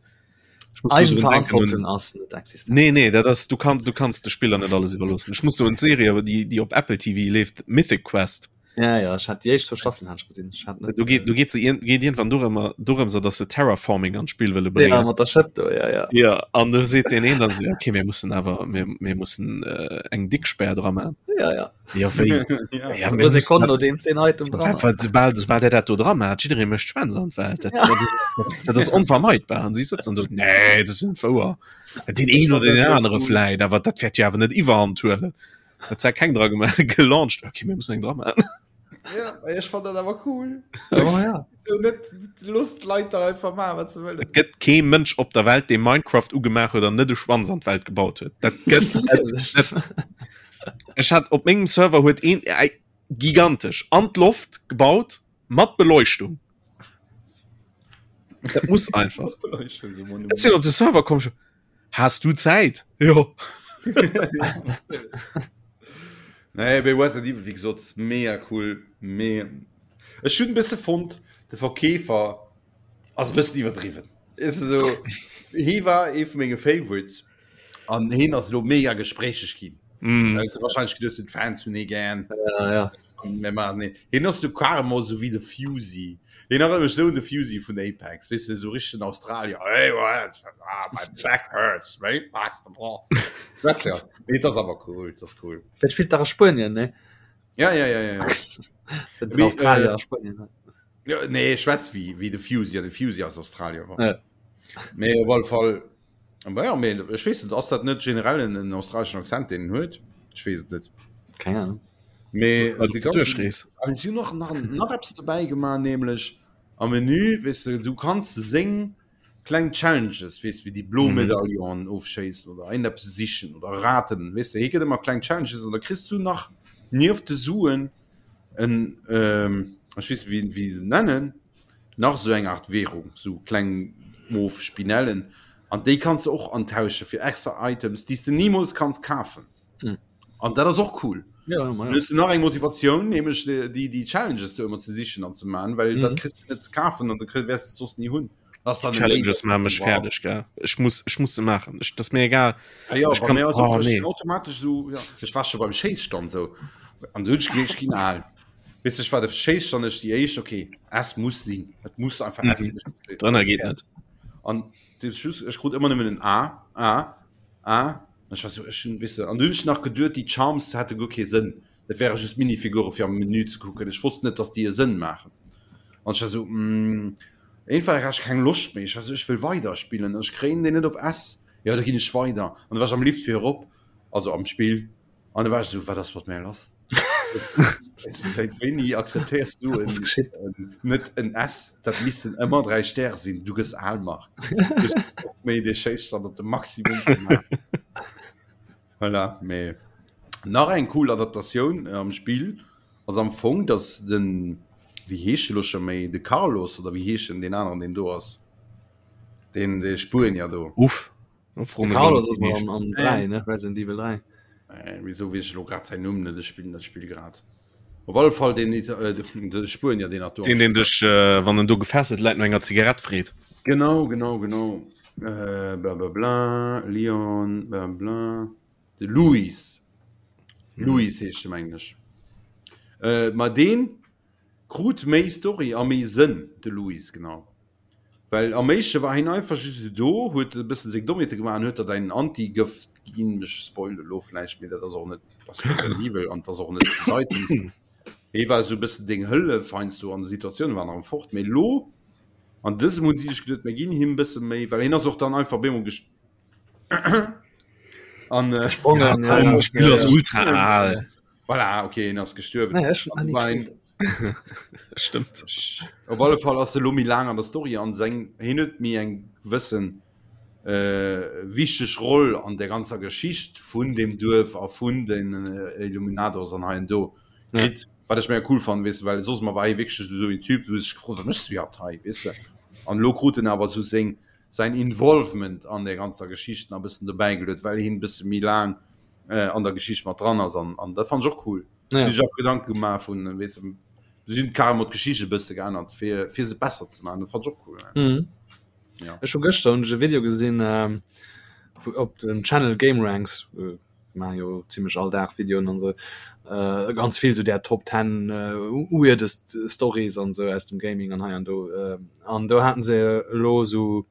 Ich muss nur drun denken Eigenverantwortung un ass net existent. Nee, nee, dat ass, du kann, du kanns de Spiller net alles iwwerloossen. Ech muss do un d'Serie, awer déi, déi op Apple TV leeft, Mythic Quest. Ja, ja, ech hat déi éischt zwou Staffelen hat ech gesinn. Ech hat net, Do geet, do geet se iergend, geet iergendwann dorëmmer, dorëms, datt se Terraforming an d'Spill wëlle Ja, bréngen. mat der Schëpp do, ja, ja. Ja, an do seet deen een dann esou, ja, okay, mir mussen awer, mir, mir mussen äh, eng dick Spär dra man. Ja, ja. Ja, wéi? Ja. Ja, Also mir mussen Sekonnen dat, nodeems deen Item dran well, ass. soubal, soubal der dat do dra maat, jidderee mécht Schwänz an d'Welt. Dat, Ja. dat, dat, dat ass onvermeidbar. An si sëtzen do, nee, dat ass net wouer. Deen een fand oder dat den sou anere cool. vläit, awer dat wäert jo awer net iwwerhand huelen. Dat zwar keng dra gemaach, gelauncht. Okay, mir mussen eng dra maachen. Ja, ech fand dat awer cool. Oh, ja. So net Lust Leit da einfach machen, wat se wëllen. Et gëtt kee Mënsch op der Welt, dee Minecraft ugemaach huet an net e Schwanz an d'Welt gebaut huet. Dat gëtt et net. Ech hat op mengem Server huet een äh, gigantesch an d'Loft gebaut mat Beleuchtung. Dat muss einfach. Ech sinn op de Server komm schon. Has du Zäit? Jo. Nee, bei Resident Evil, wie gesot, ist mega cool. Mega. Ech hunn e bësse fonnt, de Verkeefer ass e bëssen iwwerdriwwen. Ist so, hie war ee vu menge Favorites an hien ass elo mega gespréicheg ginn. Mm. Well se wahrscheinlech geduecht hunn, d'Fans hunn hie gär. Ja, ja. Mir maachen hien. Hien ass sou carrément sou wéi de Fusey. Hien erënnert mech sou un de Fusey vun Apex, weess de, sou richtegen Australier. Hey, what? Ah, my back hurts, mate. Schwätzt ja. Nee, dat ass awer cool, dat ass cool. Dat spillt dach a Spuenien, ne? Ja, ja, ja, ja, ja. Sind den Mee, Australier äh, a Spuenien, ne? Ja, nee, schwätzt wéi, wéi de Fusey, an de Fusey ass Australier war. Ja. Mee op alle Fall, Aber ja, mee ech weess net, ass dat net generell en, en australeschen Accent, deen en huet? Ech weess et net. Keng Ahnung. Mee Well de op der ganzen Duerchrees. an si hunn och nach, nach eppes dobäi gemaach, nämlech am Menü, weess de, du kanns seng kleng Challenges, weess wéi déi blo Mhm. Medaillonen ofschéissen oder een eppes sichen oder raten, weess de, hie gëtt ëmmer kleng Challenges an da kriss du nach nieft de Suen en, ähm, ech weess net wéi, wéi se nennen, nach sou eng Art Währung, sou kleng mof Spinellen, an déi kanns de och antausche fir extra Items, déi s de nimools kanns kafen. Mhm. An dat ass och cool. Ja, ja, Dann hues du nach eng Motivatioun, nämlech déi, déi, déi Challenges do ëmmer ze sichen an ze man, well dat Mhm. kriss du net ze kafen an da kriss, wäers de et soss ni hunn. Das ist dann Challenges Laser- maache mech Wow. fäerdeg, gell. Ech muss, ech muss se maachen. Ech, dat ass mir egal. Ah, ja, Ech bei kann, mir ass och, oh, ech nee. sinn automatisch so, ja, ech war scho beim Schéisstand sou an du hunn ech gemeet, ech ginn al. Weess ech war de Schéisstand ech déi éischt okay S muss sinn et muss einfach S mhm. Drënner geet net an ech krut ëmmer nëmmen en A A A ech war so ech hunn wisse an dunn nach geduet déi Charms hätte guer kee Sënn dat wäre just Minifigure fir am Menü ze kucken ech wosst net dass déi e Sënn maachen an ech war so mm, einfach hat ech keng Loscht méi ech war so ech wëll weider spillen ech kréien deen net op S ja da ginn ech weider an da war ech am Lift fir erop also am Spill An da war ech so, wat ass mat mär lass? Seit wéini akzeptéiers du en, en, net en S, dat missten ëmmer 3 Stäre sinn, du gëss al Marc. Méi de Schéisstand op de Maximum ze maachen. Voilà, mee nach eng cool Adaptatioun äh, am Spill ass am Fong, dass den, wéi heescht de lo scho méi, de Carlos oder wéi heescht en deen aneren, deen do ass, deen de Spuenier do. Uff. Carlos ass am, am 3 ne Resident Evil 3. Äh, wieso wees ech lo grad säin Numm net, ech spillen dat Spill grad. Op alle Fall den, äh, de Spuenier den do. Den den dech äh, wann en do gefesselt läit no enger Zigarett freet. Genau, genau, genau. Äh, bla bla bla, Leon, bla bla. De Luis. Mhm. Luis heescht de mengen ech. Äh, ma deen krut méi Story a méi Sënn, de Luis, genau. Well am éischte war hien einfach just esou do, huet e bëssen seng Dommheete gemaach an huet der däin Antigëft ginn. Ech spoile lo vläicht, mee dat ass och net, ass Resident Evil an ass och net bedeitend. Hie war esou e bëssen deng Hëllef heiansdo an de Situatiounen, war nach fort. Mee lo an dësem hunn si sech geduet, mir ginn him e bësse méi, well hien ass och dann einfach op eemol gest an äh, Gesprongen, ja, ja, Spiel ass ultra al. Voilà, okay, hien ass gestuerwen. Naja, ech hun War ein, Stimmt. Op alle Fall ass e lo méi laang an der Story an seng hien huet méi eng gewëssen äh, wichteg Roll an der ganzer Geschicht vun dem Duerf a vun den äh, Illuminados an hei an do Ja. kritt. Wat ech mega cool fannen, weess de, well soss ëmmer war hie wierklech just esou en Typ, du hues dech gefrot, wat méchs du iwwerhaapt hei, weess de? An elo krut en awer esou seng säin Involvement an der ganzer Geschicht nach e bëssen dobäi geluet, well hien e bësse méi laang äh, an der Geschicht mat dran ass an, an dat fand ech och cool. Ja. Ech och Gedanke gemaach vun weess de, sinn carrément d'Geschicht e bësse geännert fir fir se besser ze maachen, dat fand ech och cool. Ja. Mhm. Ja. Ech hu gëschter hunn ech e Video gesinn ähm, vu, op dem Channel Game Ranks äh, maache jo zimmlech all Dag Videoen an sou äh, ganz vill sou där Top 10 äh, weirdest Stories an sou aus dem Gaming an hei an do äh, an do haten se elo sou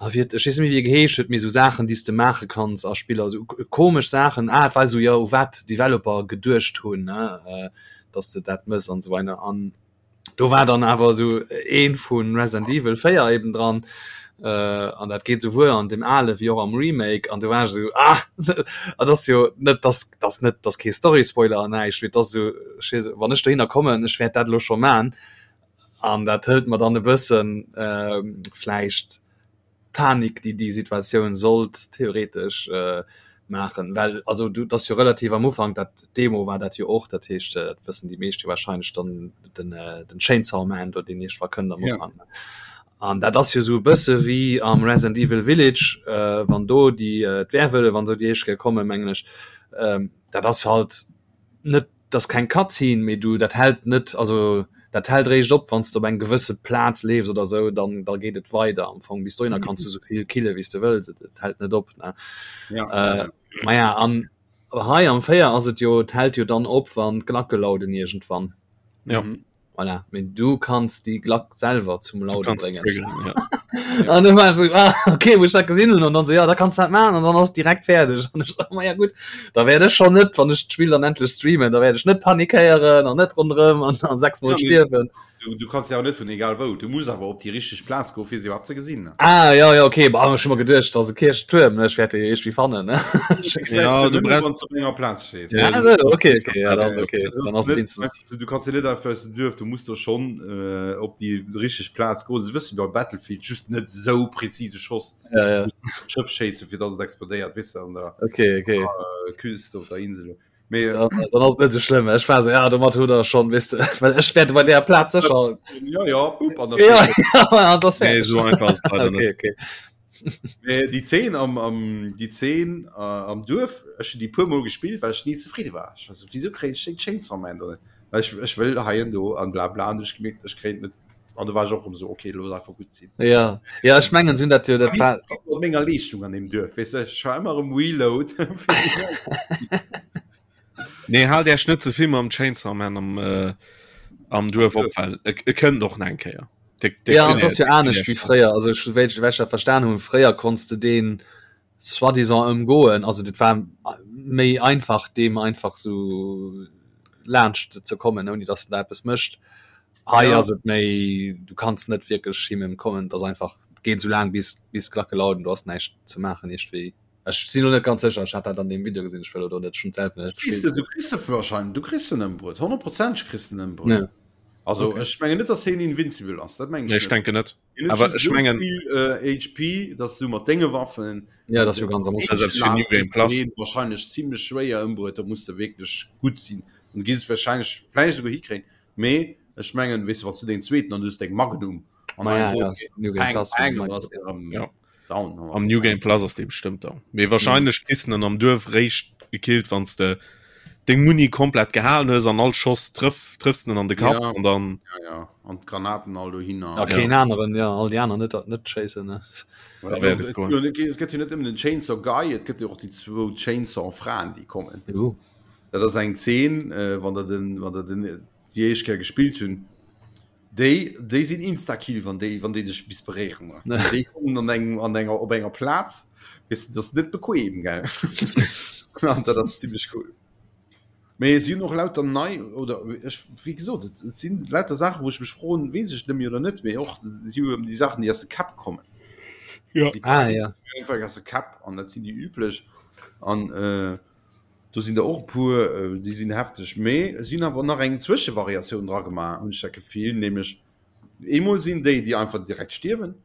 Ah, wéi huet, ech weess net méi wéi e geheescht huet, mee sou Saachen déi s de maache kanns a Spiller, sou komesch Saachen, ah et war sou jo u wat Developer geduecht hunn ne, dass de dat mëss an esou weider an do war dann awer sou ee vu Resident Evil 4 eben dran an dat geet souwuel an deem ale wéi och am Remake an do war ech sou ah dat ass jo net dass dass net dass kee Story Spoiler an näischt, mee et ass sou ech weess wann ech dohinner kommen ech wäert dat elo scho man An dat hëlt mer dann e bëssen vläicht d'Panik, déi déi Situatioun sollt theoretesch maachen. Well also du, et ass jo relativ am Ufank, dat Demo war dat jo och, dat heescht, dat wëssen déi meescht jo warscheinlech dann, den den Chainsaw Man do, deen iergendwa kënnt am Ufank. An dat ass jo esou e bësse wéi am Resident Evil Village, wann do déi d'Werwëllef an esou déi éischt Kéier kommen, mengen ech. Dat ass halt net Dat ass keng Cutscene, mee du dat hält net, also dat hält eréischt op wann s de op eng gewësse Plaz leefs oder sou, dann da geet et weider am Fong. Bis dohinner kanns du sou vill kille wéi s de wëlls, et et hält net op ne. Ja. Äh, maja an hei am 4 ass et jo, et hält jo dann op wann d'Glacke lauden iergendwann. Ja. Mhm. Voilà. Mee du kanns déi Glack selwer zum Du Laude kanns bréngen. triggeren, ja. An dann war ech so, ah, okay, wou ech dat gesinn hunn, an dann so, ja, da kanns du dat maachen an dann ass direkt fäerdeg. An ech so, ma ja gutt, da wäert ech schonn net, wann ech d'Spill dann endlech streamen, da wäert ech net panikéieren an net ronderëm an, an sechsmol Ja, mee stierwen. du, du kanns ja och net vun egal wou, du muss awer op déi richteg Plaz goen, fir se iwwerhaapt ze gesinn. Ah, ja, ja, okay, bah, ech hu mer geduecht, dat ass e Kierchtuerm, ne, ech wäert dee iergendwéi fannen, ne. Ja, Ja, du du brauchst wann du op enger Plaz stees. Ja, Ah, du so, brauchst okay, okay, ja, dann, Ja, okay, Das dann ass ass et net, wenigstens. du kannst ja net einfach aus dem Duerf, du musst do schon äh, op déi richteg Plaz goen. Se wëssen bei Battlefield just net sou präzise Schoss Ja, ja, Schëff schéisse fir dass et explodéiert, weess de, an der okay, okay. äh, Küste op der Insel. Mee äh, Dann, dann ass et net sou schlëmm. Ech war so, ja, domat hutt der schon, weess de, well ech wäert bei där Plaz sécher. ja, ja, bup, an der Ja, Schëff. ja, das Nee, fäerdeg. so einfach ass et leider net. Okay, okay. Mee déi Zeen am, am, déi Zeen äh, am Duerf, ech hunn déi puer Mol gespillt, well ech ni zefridde war. Ech war so, wieso kréien ech den Chainsaw Man do net? Well ech, ech wëll hei an do an bla bla an ech gemierkt, ech kréien et net. An do war ech och erëm so, okay, looss einfach gutt sinn. Ja, ja, ech mengen, si hunn dat jo, dat war, Mat menger Leeschtung an deem Duerf, weess de, ech war ëmmer erëm Reload. Nee, haalt Äech net ze vill mam Chainsaw Man am, äh, am Duerf op, well e, e kënnt och nach eng Kéier. De, de ja, dat ass jo anescht wéi fréier. Also ech wéi ech dat verstan hunn, fréier konns de deen soi-disant ëmgoen. Also dat war méi einfach deem einfach sou laanscht ze kommen, ouni datt en da eppes mécht. Hei ja. ass et méi du kanns net wierklech him ëmkommen, et ass einfach geet sou laang bis bis d'Glacke lauden, du has näischt ze maachen iergendwéi. Ech sinn lo net ganz sécher, ech hat dat an deem Video gesinn, ech wëll elo net schon selwer net Kriss du, du kriss de wahrscheinlich, du kriss den ëmbruet, honnertprozenteg kriss den ëmbruet. Ja. Also okay. ech mengen net, dass hien invincible ass, dat mengen ech. Nee, ech denken net. Awer ech mengen vill äh, HP, dass du mat denge Waffen ja, das jo ganz am New Game Plus wahrscheinlich ziemlich schwéier ëmbruet, da muss du wierklech gutt sinn. Und gehst wahrscheinlich vielleicht sogar hikréien. Mee ech mengen, weess du, wann du deng zweeten an du hues deng Magnum an ah, ja, ja, New Game Plus, ja. Down, am New Game Plus ass dee bestëmmt down. Mee wahrscheinlech kriss en am Duerf réischt gekillt, wann s de deng Muni komplett gehalen hues an all Schoss trëff, trëffs en an de Kapp ja. an dann. Ja, ja. An d'Granaten all dohinner. Ja, keen ja. aneren, ja, all déi aner net, net schéissen. Ne? Et gëtt jo net ëmmen den Chainsaw Guy, et gëtt jo och déi zwou Chainsaw Fraen, déi kommen. Uh. Dat ass eng Zeen, äh, wann der den, wann der den déi éischt Kéier gespillt hunn. Déi, déi sinn Instakill, wann déi, wann déi dech bis beréieren. Déi kommen an engem, an enger, op enger Plaz, weess de, dat ass net bequem, gell? An dat ass zimmlech cool. Mee si hunn och lauter nei, oder ech, wéi gesot, et, et sinn lauter Saachen, wou ech mech froen, weess ech net méi oder net, mee och si hu déi Saachen, déi aus de Käpp kommen. Ja. Si, ah, ja. Einfach aus de Käpp, an dat sinn déi üblech. An, äh, Do sinn der och e puer, déi sinn hefteg. Mee si hunn awer nach eng Zwëschevariatioun dra gemaach, hunn ech dat Gefill. Nämlech eemol sinn déi, déi einfach direkt stierwen,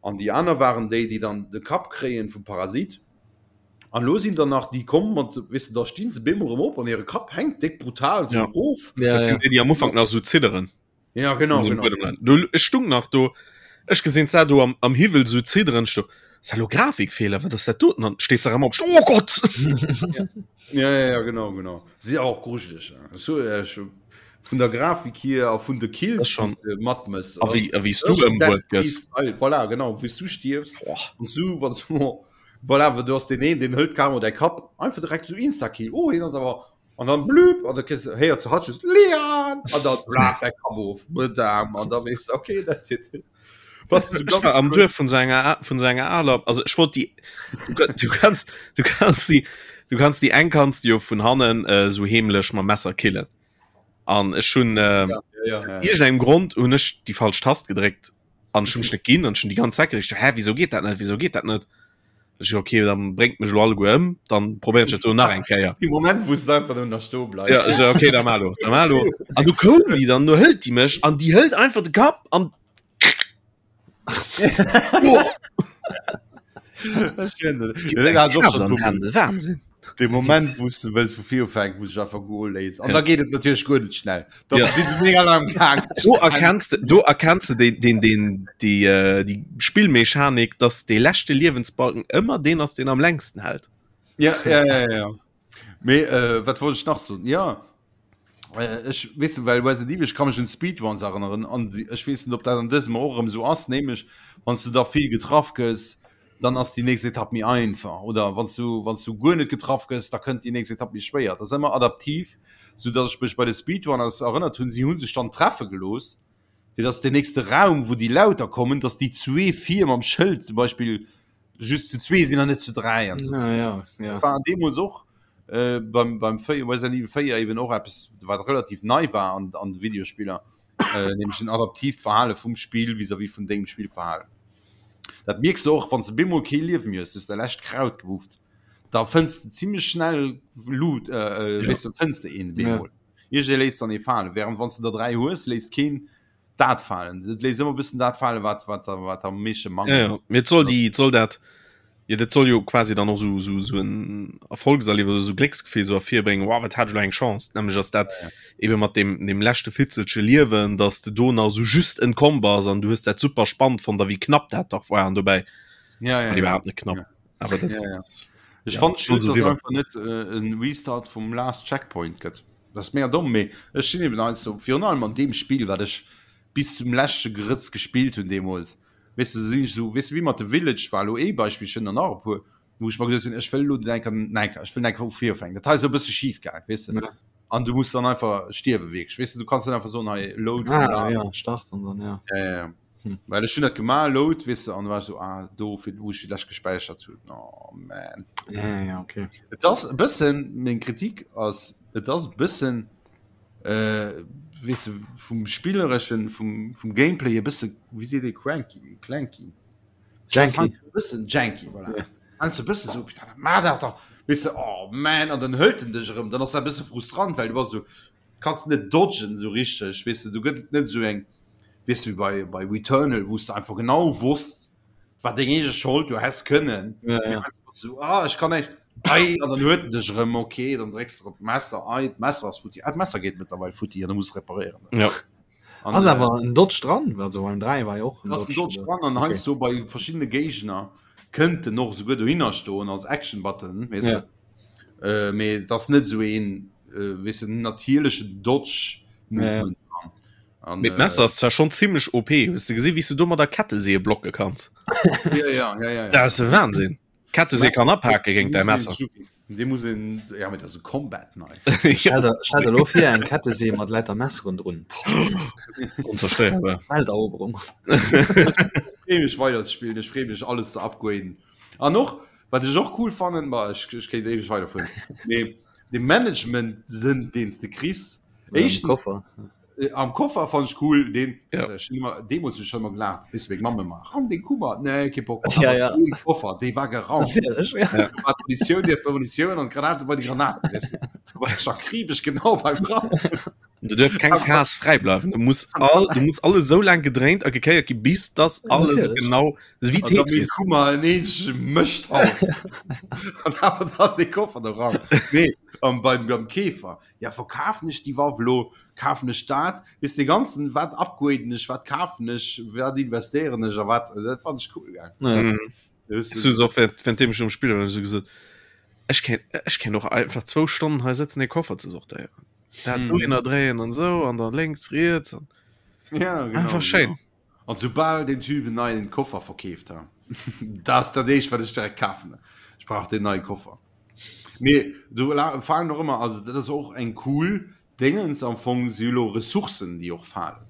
an déi aner waren déi, déi dann de Kapp kréien vum Parasit. An elo sinn der nach déi komm mat, weess de, da stinn se bemol erëm op an hire Kapp hänkt déck brutal esou erof. Dat sinn déi, déi am Ufank nach esou zidderen. Ja, genau, genau. Du, ech stung nach do, ech gesinn se do am, am Hiwwel so zidderen, ech do, Ass dat lo Grafikfehler, wat ass dat doten? An steet se erëm op, oh Gott! Ja, ja, ja, genau, genau. Si awer och grujeleg. So, äh, vun der Grafik hier a vun de Kills schon matmëss. A wéi, a wéi s du ëmbruet gëss. Voilà, genau, wéi s du stierfs. An du, wann du, voilà, du hast den een, den hëlt carrément däi Kapp, einfach direkt so Insta-Kill. Oh, hien ass awer An dann blüb, an da kriss héiers du hatt just Leon! An dann blaf däi Kapp of, Madame, an da weess de, okay, that's it. Was du ganz am Duerf vun so enger vun so enger aler also ech wollt die du, du kannst du kannst die du kannst die eng kannst jo vun hannen äh, so heemlech mam Messer killen an ech hun äh, ja, ja, ja, ja. engem Grond hun ech die falsch Tast gedréckt an schon net ginn an schon die ganz Zeit hä wieso geht dat net wieso geht dat net Ech so, okay, dann bréngt mech lo alleguer ëm, dann probéieren ech dat do nach eng Kéier. Dee Moment, wou s de einfach nëmmen nach stoe bleifs. Ja, ech so, okay, da mar lo, da mar lo. An du koum déi dann, du hëlt déi mech an déi hëlt einfach de Kapp an Wahnsinn. De Moment wou s de wëlls vu vir ufänken, wou sech einfach goe léisst. An da geet et natierlech guer net schnell. Da Ja. sinn se mega laang gaang. Do erkennst de, do erkennst de den, den, den, déi, äh, déi Spillmechanik, dass dee leschte Liewensbalken ëmmer deen ass, deen am längsten hält. Ja, ja, ja, ja, ja. Mee äh, wat wollt ech nach soen? Ja, äh, ech weess du, well Resident Evil, ech ka mech un d'Speedruns erënneren an déi- ech weess net, ob dat an dësem och erëm esou ass, nämlech wann s du da vill getraff gëss, dann ass déi nächst Etapp méi einfach oder wann s du wann s du guer net getraff gëss, da kënnt déi nächst Etapp méi schwéier. Dat ass ëmmer adaptiv, sou datt ech mech bei de Speedrunners erënnert hunn, si hu sech dann treffe gelooss, fir datt deen nächste Raum, wou déi Lauter kommen, datt déi zwee vir mam Schëld zum Beispill just zu zwee sinn an net zu dräi an sou. Ja, ja, ja. Dat war deemools och äh, beim, beim 4, Resident Evil 4 eben och eppes, wat relativ nei war an, an de Videospiller, äh, nämlech en adaptiivt Verhale vum Spill vis-à-vis vun dengem Spillverhalen. Dat mierks de och, wann s de bemol kee Liewe méi hues, du hues däi lescht Kraut gewufft, da fënns de zimmlech schnell Loot, äh, äh, weess de, fënns de een bemol. Iergendee léisst dann ee falen, während wann s de der 3 hues, léisst keen dat falen. Et léisst ëmmer e bëssen dat falen, wat, wat, wat am meeschte Ja, mangelt. ja. Mee et soll déi, et soll dat, Jo, dat soll jo quasi dann och sou, sou, sou en Erfolgserliewes oder sou Glécksgefill sou ervirbréngen, wow, wat hat ech elo eng Chance. Nämlech ass dat ebe mat deem, deem leschte Fitzelche Liewen, dass de do nach sou just entkomm bass an du hues dat super spannend fonnt a wéi knapp dat dach war an dobäi Ja, ja, war ja. iwwerhaapt net knapp. Ja. Awer dat Ja, ja. ass, Ech ja, fand soll schued, sou dass riwwer. einfach net äh, en Restart vum Last Checkpoint gëtt. Dat ass mega domm, mee ech sinn eben eins so, virun allem an deem Spill, wat ech bis zum leschte Grëtz gespillt hunn deemools. Weess de, sinn ech esou, weess de, wéi mat The Village war elo ee Beispill, ech hunn der nach e puer. Wou ech mer geduet hunn, ech wëll elo enker, enker, ech wëll enker vu vir ufänken. Dat hei ass esou e bësse schif gaang, weess de. Ja. An du muss dann einfach stierwe wierklech, weess de, du kanns net einfach soen, hei load. Ah, ja, start an dann, ja. Ja, ja, ja. Hm. Well ech hunn dat gemaach, load, weess de, an da war ech so, ah, do, fir, wou ech fir d'lescht gespäichert hunn. Oh, man. Ja, ja, okay. Et ass e bëssen, meng Kritik ass, et ass e bëssen, äh, weess de, vum Spillereschen, vum, vum Gameplay e bësse, wéi seet ee, cranky, clanky. Janky. Bëssen janky, voilà. Ja. Heiansdo bësse so, putain, ma dat doch. Weess de, oh man, an dann hëlt en dech erëm, dann ass dat e bësse frustrant, well du bass so, kanns net dodgen so richteg, weess de, du gëtt et net esou eng, weess de, wéi bei, bei Returnal, wou s de einfach genau wosst, war deng eege Schold, du häss kënnen. Ja, ja. So, ah, ech kann näischt, ei, an dann huet en dech erëm, okay, dann drécks de op d'Messer, ei, d'Messer ass futti, ah, d'Messer geet mëttlerweil futti an du muss reparéieren. Ja. An, Ass äh, awer en Dodge dran, also beim 3 war jo och en Dodge Dodge dran an okay. heiansdo bei verschiddene Géigner kënnt en och souguer dohinner stoen als Action Button, weess ja. de. Äh, mee et ass net sou een äh, weess de, natierlechen Dodge Movement. Ja. An, Mit Messer ass zwar schon ziemlech OP. Hues du gesinn, wéi s du do mat der Ketteseeë blocke kanns? Ja, ja, ja, ja, ja. Dat ass e Wahnsinn. Ketteseë kann aphake géint däi Messer. Dee muss een, ja, mee dat ass e Combat Knife. Stell der, stell der lo vir eng Kettesee mat lauter Messeren drun. Onzerstéierbar. Welteroberung. Ech freeë mech weider ze spillen, ech freeë mech alles ze upgraden. An och, wat ech och cool fannen, ma ech, ech kéint éiweg weiderfueren, mee de Management-Sënn, deen s de kriss, éischtens, Koffer. Äh, am Koffer fand ich cool den ja. äh, immer, deemools schon immer gelacht bis meng Mamme mach ram den Kummer nee ke Bock ja, ja. Den Koffer dee war geraumt ja. ja. Munition die Munition an Granate bei die Granaten weißt du. war ich akribisch genau beim Raum Du dürf kein Chaos frei bleiben. Du musst all, du musst alles so lang gedréint a gekéiert gi bis das alles Natürlich. genau so wie Tetris. Kummer en eenzege Mëscht an awer dann de Koffer da ran. Nee, am beim, beim Käfer. Ja verkafen ech déi Waff elo, kafen ech dat, weess de ganzen wat upgraden ech, wat kafen ech, wat investéieren ech a wat, dat fand ech cool gell. Ja. Mhm. Weess du och während während dem ech um Spille war, hu ech gesot, ech kéint ech kéint och einfach zwou Stonnen hei sëtzen e Koffer ze sortéieren. Dat Mhm. dohinner dréien an esou an dann lénks, riets an Ja, genau, einfach schéin. Genau. An soubal den Typ en neien Koffer verkeeft ha, dat ass dat éischt wat ech direkt kafen. Ech brauch deen neie Koffer. Mee do falen och ëmmer, also dat ass och eng cool Déngens am Fong, si elo Ressourcen déi och falen.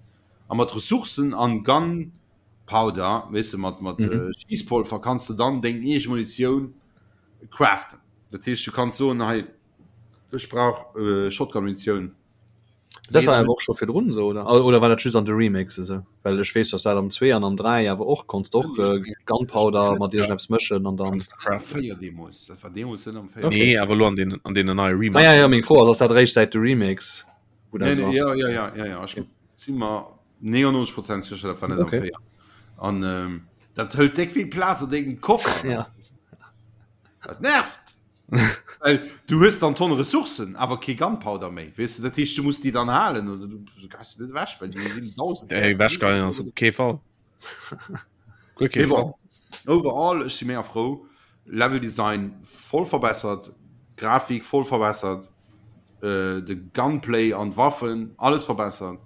A mat Ressourcen an Gunpowder, weess de, mat mat Schiesspolver kanns de dann deng eege Munitioun craften. Dat heescht du kanns soen, hei ech brauch Shotgun-Munitioun. Dat war awer och scho virdrun esou, oder? Oder war dat just an de Remakes esou? Well ech weess, dass dat am 2 an am 3 awer och konns de och äh, Gunpowder mat iergendeppes mëschen an dann. Véier deemools, dat war deemools net am 4. Okay. Nee, awer elo an den, an deenen neie Ah, Remakes. ja, ja, meng Fro ass, ass dat eréischt säit de Remakes, wou dat Nee, esou nee, ass? ja, ja, ja, ja, ja. Ech si mer 99 Prozent sécher, dat war net am Okay. 4. An ähm, dat hëlt déck vill Plaz an dengem Koffer. Ja. Dat nervt! Well du hues dann Tonne Ressourcen, awer kee Gunpowder méi, weess de. Dat heescht, du muss déi dann halen oder du geheis se net ewech, well déi sinn 1000 Ey, ewechgeheien ass op kee Fall. Guer kee Mee Fall. bon, overall, ech si mega frou. Level Design voll verbessert, Grafik voll verbessert, äh, de Gunplay an d'Waffen, alles verbessert.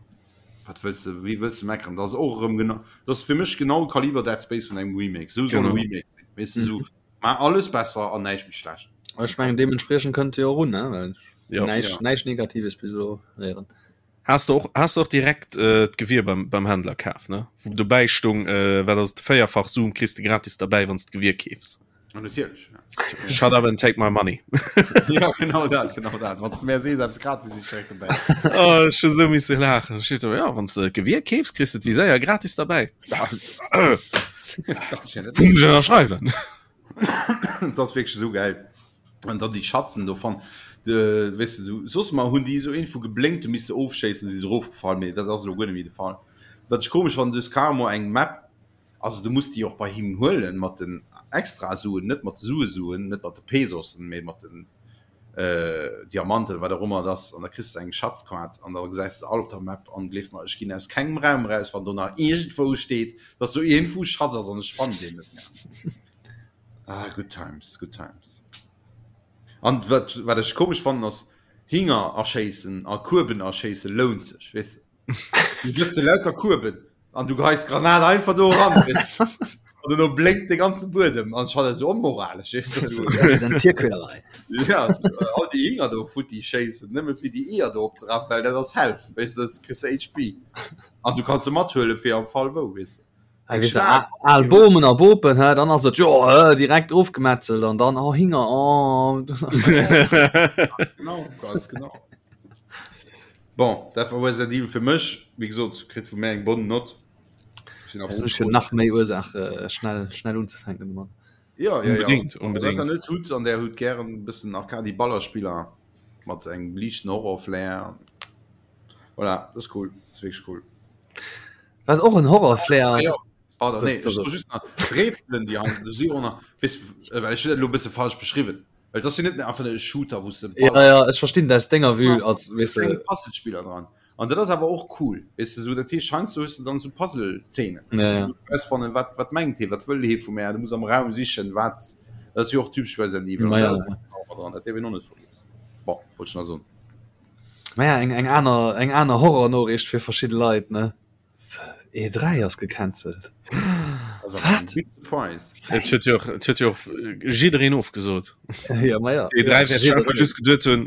Wat wëlls de, wéi wëlls de meckeren? Dat ass och erëm genau, dat ass fir mech genau Kaliber Dead Space vun engem Remake. Esou soll e Genau. Remake sinn, weess de, esou Maach alles besser an näischt méi schlecht. Ech mengen deementspriechend kënnt Dir och un, ne? Well Ja. näischt, Ja. näischt Negatives bis elo héieren. Has de och, has de och direkt äh, d'Gewier beim, beim Händler kaf, ne? Wou dobäi stung, äh, wat ass et, véierfach Zoom kriss de gratis derbäi, wann s d'Gewier keefs. Ja, natierlech. Ja. Shut up and take my money. ja, genau dat, genau dat. Wann s du mir sees, eppes gratis is, direkt dobäi. Oh, ech hu sou misse laachen. Steet do, ja, wann s de d'Gewier keefs, kriss de d'Viséier gratis derbäi. Ja, äh. Ënnerschreiwen. Dat ass wierklech esou geil. An dann déi Schatzen do fan de weess de du soss mar hunn déi esou iergendwou geblénkt, du misst se ofschéissen, si se erofgefall, mee dat ass elo guer net méi de Fall. Wat ech komesch fannen, du hues carrément eng Map, also du muss déi och bei him huelen mat den Extrasuen, net mat de Suesuen, net mat de Pesosen, mee mat den Diamanten oder wat och ëmmer et ass, an da kriss de eng Schatzkaart an da gesäis de all op der Map an gleef mer, ech ginn aus kengem Raum eraus, wann do nach iergendwou steet, dass do iergendwou e Schatz ass an ech fannen deen net méi. Ah, good times, good times. An wat, wat ech komesch fannen ass, Hinger erschéissen a Kueben erschéisse lount sech, weess de. Du sëtze lauter Kueben an du geheis d'Granat einfach do eran, weess de. An duerno blénkt de ganze Buedem an ech fannen dat esou onmoralesch, weess de, esou. Dat ass eng Tierquälerei. Ja, all déi Hinger do futti schéissen, nëmme fir déi Eeër do opzerafen, well dat ass Health, weess de, dat kriss de HP. An du kanns se mathuelen fir am Fall wou, weess de. Hei weess de, al Bomen a Bopen, hä, dann ass et jo direkt ofgemetzelt an dann, oh Hinger, oh. Genau, ganz genau. Bon, dat war Resident Evil fir mech. Wéi gesot, kritt vu mär eng bonne Note. Ech hunn nach méi Ursaach äh, schnell, schnell unzefänken domat. Ja, ja, unbedingt, ja. unbedingt. Wat net hutt an der hutt gären bëssen Arcade Ballerspiller mat engem liichten Horror-Flair. Voilà, das ist cool, das ist wirklich cool. Wat och en Horror-Flair ass. Ah, ja. Pardon, So, nee, so, ech so. just nach d'Rätselen, déi an du si och nach, weess, well ech hunn dat elo e bësse falsch beschriwwen. Well dat ass jo net einfach e Shooter, wou s de Ja, ja, ech verstinn dat aus denger Vue als, weess klenge de, Puzzlespiller dran. An dat ass awer och cool, weess de, sou dat heescht heiansdo hues de dann sou Puzzle-Zeenen, Ja, wou ja. du rausfannen, wat, wat mengt hee, wat wëll hee vu mär, du muss am Raum sichen, wat, dat ass jo och typesch Resident Evil, Ma an ja, dat ass ja. och dran, dat däerf een och net vergiessen. Bon, wollt ech nach soen. Ma ja, eng, eng aner, eng aner Horror-Noriicht fir verschidde Leit, ne? E3 ass gecancelt. Wat? Big surprise. Et huet jo och, et huet jo och jiddereen ofgesot. Ja, ma ja. Déi 3 wäert einfach just geduet hunn,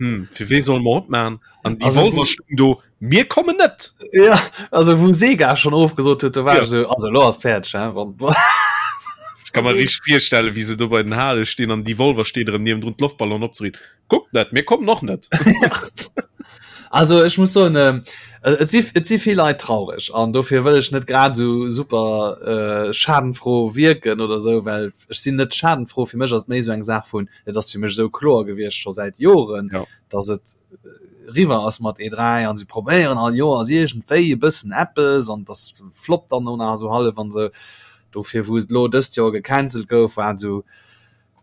hm, fir wee solle mer opmachen? An déi Also, Wolver stoung do, mir kommen net! Ja, also wou Sega schon ofgesot huet, do war Ja. ech sou, also lo ass fäerdeg, hä? Wann, Ech kann mer richteg virstellen, wéi se do bei den Hale stinn an déi Wolver steet erëm niewendrun d'Loftballon opzeriichten. Kuckt net, mir kommen och net. Also ech muss soen, ähm, et si, et si vill Leit traureg an dofir wëll ech net grad esou super äh, schadenfroh wierken oder esou, well ech sinn net schadenfroh. Fir mech ass et méi esou eng Saach vun, et ass fir mech esou kloer gewiescht scho säit Joren, Ja. dass et riwwer ass mat E3 an se probéieren all Joers iergendwéi e bëssen eppes an dass floppt dann no nach esou hallef an esou. Dofir wou et elo dëst Joer gecancelt gouf, war et esou,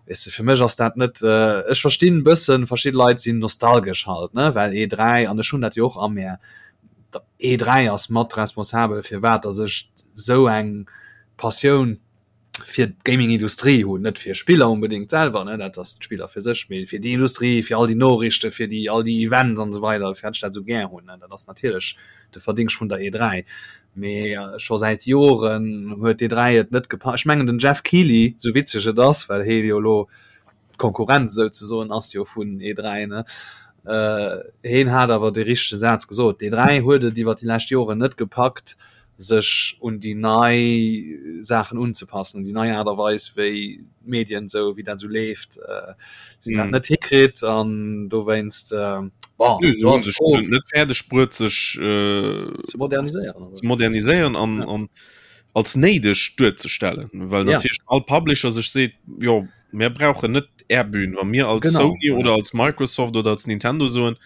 Weess de, fir mech ass dat net, ech verstinn e bëssen, verschidde Leit sinn nostalgesch halt, ne, well E3, an ech hunn dat jo och a mär, E3 ass mat responsabel firwat datt ech esou eng Passioun fir d'Gaming-Industrie hunn, net fir Spiller onbedéngt selwer, ne, dat ass d'Spiller fir sech, mee fir déi Industrie, fir all déi Noriichten, fir déi all déi Events an esou weider, firwat ech dat esou gär hunn, ne, dat ass natierlech de Verdingscht vun der E3. Mee scho säit Joren huet d'E3 et net gepa. Ech mengen den Jeff Keighley, sou witzeg et ass, well hee jo elo d'Konkurrenz souzesoen ass jo vun E3, ne, heen hat awer dee richtege Saz gesot, d'E3 huet et iwwer déi lescht Joren net gepackt, sech un déi nei Saachen unzepassen, un déi nei Aart a Weis wéi d'Medien esou wéi dat esou leeft, si hunn dat net hikritt an dowéinst bon, Nö, se do hunn ass sech d'Fro net fäerdeg bruet sech ze moderniséieren ze moderniséieren an Ja. an als néideg duerzestellen, well Ja. natierlech all Publisher sech seet, jo mir brauchen net är Bühn, wa mir als Genau, Sony ja. oder als Microsoft oder als Nintendo soen,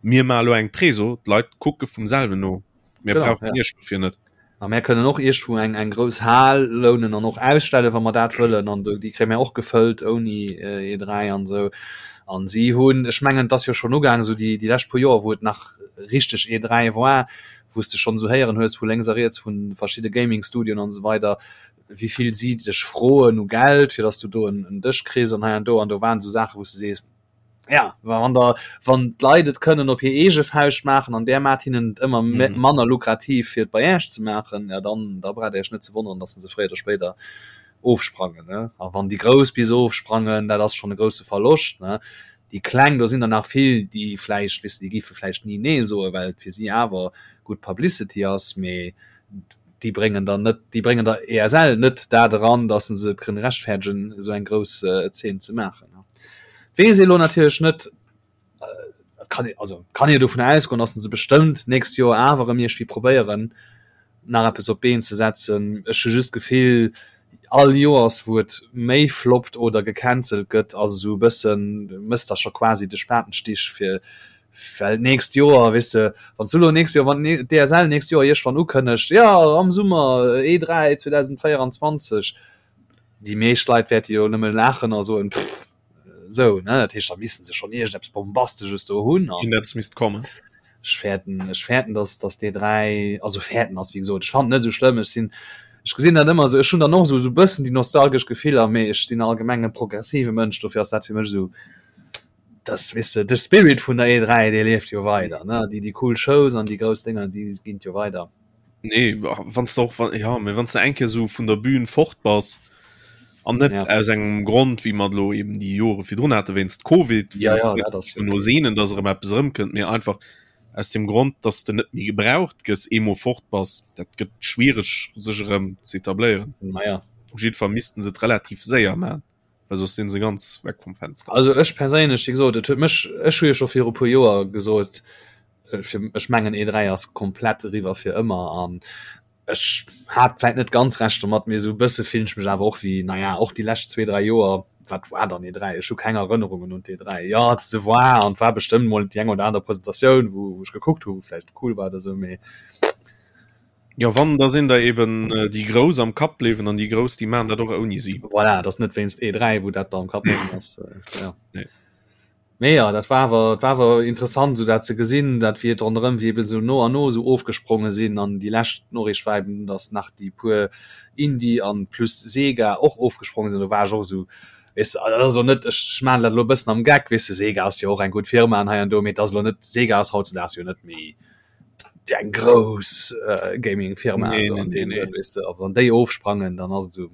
mir maache lo eng Preso, d'Leit kucke vum selwen no. Mir Genau, brauchen ja. Iech dofir net. A mär kënnen och iergendwou eng, eng grouss Hal lounen an och ausstellen, wa mer dat wëllen. An do, déi kréie mär och gefëllt ouni E3 an esou. An si hunn, ech mengen, et ass jo schonn ugaangen, esou déi, déi lescht puer Joer, wou et nach richteg E3 war, wou s de schonn esou héieren hues vu lénks a riets vu verschidde Gaming-Studioen an esou weider, wéi vill si dech froen u Geld, fir datt s du do en, en Dësch kriss an hei an do. An do waren esou Saachen, wou s de sees, Ja, wann der wann d'Leit et kënnen op hir eege Fauscht maachen an där maacht hinnen et ëmmer mm. manner lukrativ fir et bei Äech ze maachen, ja dann da braucht Dir Iech net ze wonneren, dass se fréier oder spéider ofsprangen ne? A wann déi Grouss bis ofsprangen, dat ass schon e grousse Verloscht ne? Déi Kleng, do sinn der nach vill, déi vläicht, weess de, déi géife vläicht ni nee soen, well et fir si awer gutt Publicity ass, mee déi bréngen der net, déi bréngen der ESL net dat eran, dass se et kënnen rechtfäerdegen, esou eng grouss Zeen ze maachen. Weess ee lo natierlech net, kann ee, also kann ee dovun ausgoen, dass se bestëmmt d'nächst Joer awer erëm iergendwéi probéieren, nach eppes op d'Been ze setzen. Ech hu just d'Gefill, all Joers wou et méi floppt oder gecancelt gëtt, ass esou e bëssen, mëss der scho quasi de Spatenstich fir well d'nächst Joer, weess de, wann s du elo nächst Joer, wann d'ESL nächst Joer iergendwann ukënnegt, jo am Summer E3 2024, déi meescht Leit wäerte jo nëmme laachen a soen, pff, esou, ne? Dat heescht, da misste se schonn iergendeppes Bombastesches do hunn. An Iergendeppes misst kommen. ech fäerten, ech fäerten, dass, dass déi 3, also fäerten ass, wéi gesot, ech fannen et net esou schlëmm. Ech sinn, ech gesinn dat ëmmer esou, ech hunn dann och esou, esou e bëssen déi nostalgesch Gefiller, mee ech sinn allgemeng e progressive Mënsch, dofir ass dat fir mech esou, das, weess de, de Spirit vun der E3, dee lieft jo weider, ne? Déi, déi cool Shows an déi grouss Dénger, déi ginn jo weider. Nee wann du och wann, ja, wann du eng Kéier sou vun der Bühn fort bass an net ja. aus engem Grond wéi mer lo eben déi Jore virdrun hate wéinst Covid ja, ja, ja, das no sehnen, dass erëm eppes erëmkënnt, mee einfach aus dem Grond, dass de net méi gebraucht gëss, eemol fort bass, dat gëtt schwiereg sech erëm ze etabléieren. Naja. Op jiddwer Fall missten se et relativ séier man, well soss sinn se ganz weg vum Fenster. Also ech perséinlech, wéi gesot, et huet mech, ech hu jo scho viru puer Joer gesot, fir, ech mengen E3 ass komplett eriwwer fir ëmmer an ech hat vläit net ganz Recht domat, mee esou e bësse fillen ech mech awer och wéi, naja, och déi lescht zwee, dräi Joer, wat war dann E3? Ech hu keng Erënnerungen un d'E3. Jo, se war an et war bestëmmt mol déi eng oder aner Presentatioun, wou, wou ech gekuckt hu, wou vläicht cool war oder esou, mee. Jo, wann, da sinn der eben déi Grouss am Kapp bliwwen an déi Grouss, déi maachen dat och ouni si. Voilà, et ass net wéinst E3, wou dat da am Kapp bliwwen ass, jo. Nee. Mee jo, dat war awer, et war awer interessant esou dat ze gesinn, dat wéi et ronderëm, wéi eben esou no an no esou ofgespronge sinn an déi lescht Noriicht war eben, datt nach déi puer Indie an plus Sega och ofgespronge sinn. Do war ech och esou, weess de, dat ass elo net, ech maachen dat elo e bëssen am Geck, weess de, Sega ass jo och eng gutt Firma an hei an do, mee et ass elo net, Sega ass hautzedaags jo net méi eng grouss Gaming-Firma esou an deem Sënn, weess de, a wann déi ofsprangen, dann ass et esou.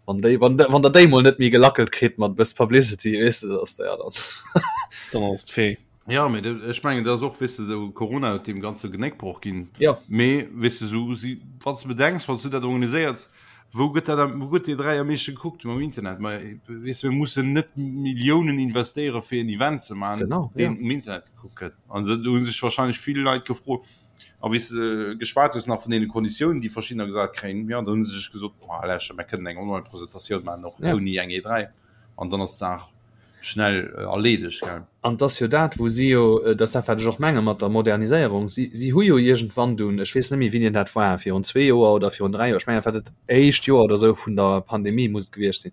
Wann déi, wann, wann der déi mol net méi gelackelt kritt mat bëss Publicity, weess de, dass der ja dann. Dann ass d'Fee. Ja, mee ech mengen, dat ass och, weess de, de Corona huet deem Ganze Genéckbroch ginn. Ja. Mee, weess de, sou si, wann s de bedenks, wann s du dat organiséiers, wou gëtt dat am, wou gëtt déi 3 am meeschte gekuckt? Mam Internet. Ma weess de, mir mussen net Milliounen investéiere fir en Event ze maachen, Genau, ja. deen um Internet gekuckt gëtt. An do hu sech wahrscheinlech vill Leit gefrot, A wéi s de geschwat hues nach vun deene Konditiounen, déi verschiddener gesat kréien, jo, dann hu se sech gesot, Ma lächer, mir kënnen eng Online-Presentatioun maachen, och ouni eng E3. An dann ass d'Saach schnell erleedegt, gell. An 't ass jo dat, wou si jo, dat ass dat, wat ech och menge mat der Moderniséierung, si, si hu jo iergendwann dunn, ech weess net méi, wéini dat war, virun zwee Joer oder virun dräi Joer, ech mengen, dat war dat éischt Joer oder esou vun der Pandemie muss et gewiescht sinn,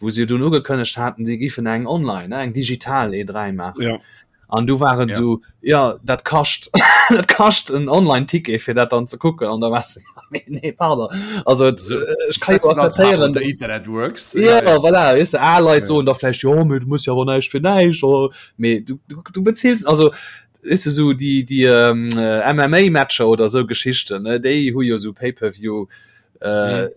wou se jo dunn ugekënnegt haten, si giffen eng online, eng digital E3 maachen. Ja. An du war et Ja. esou, ja, dat kascht, dat kascht en Online-Ticket, fir dat dann ze kucken. An da war se, nee, nee, pardon. Also, et, So, ech kann jo That's not how akzeptéieren, the dass Internet works. Ja, ja, voilà, weißt du, al Leit Ja. soen da vläicht, jo, mee du muss jo awer näischt fir näischt, oder, mee du, du, du beziels, also, weißt du, sou déi, déi ähm, äh, MMA-Matcher oder sou Geschichten, ne, déi hu jo sou Pay-per-view, äh,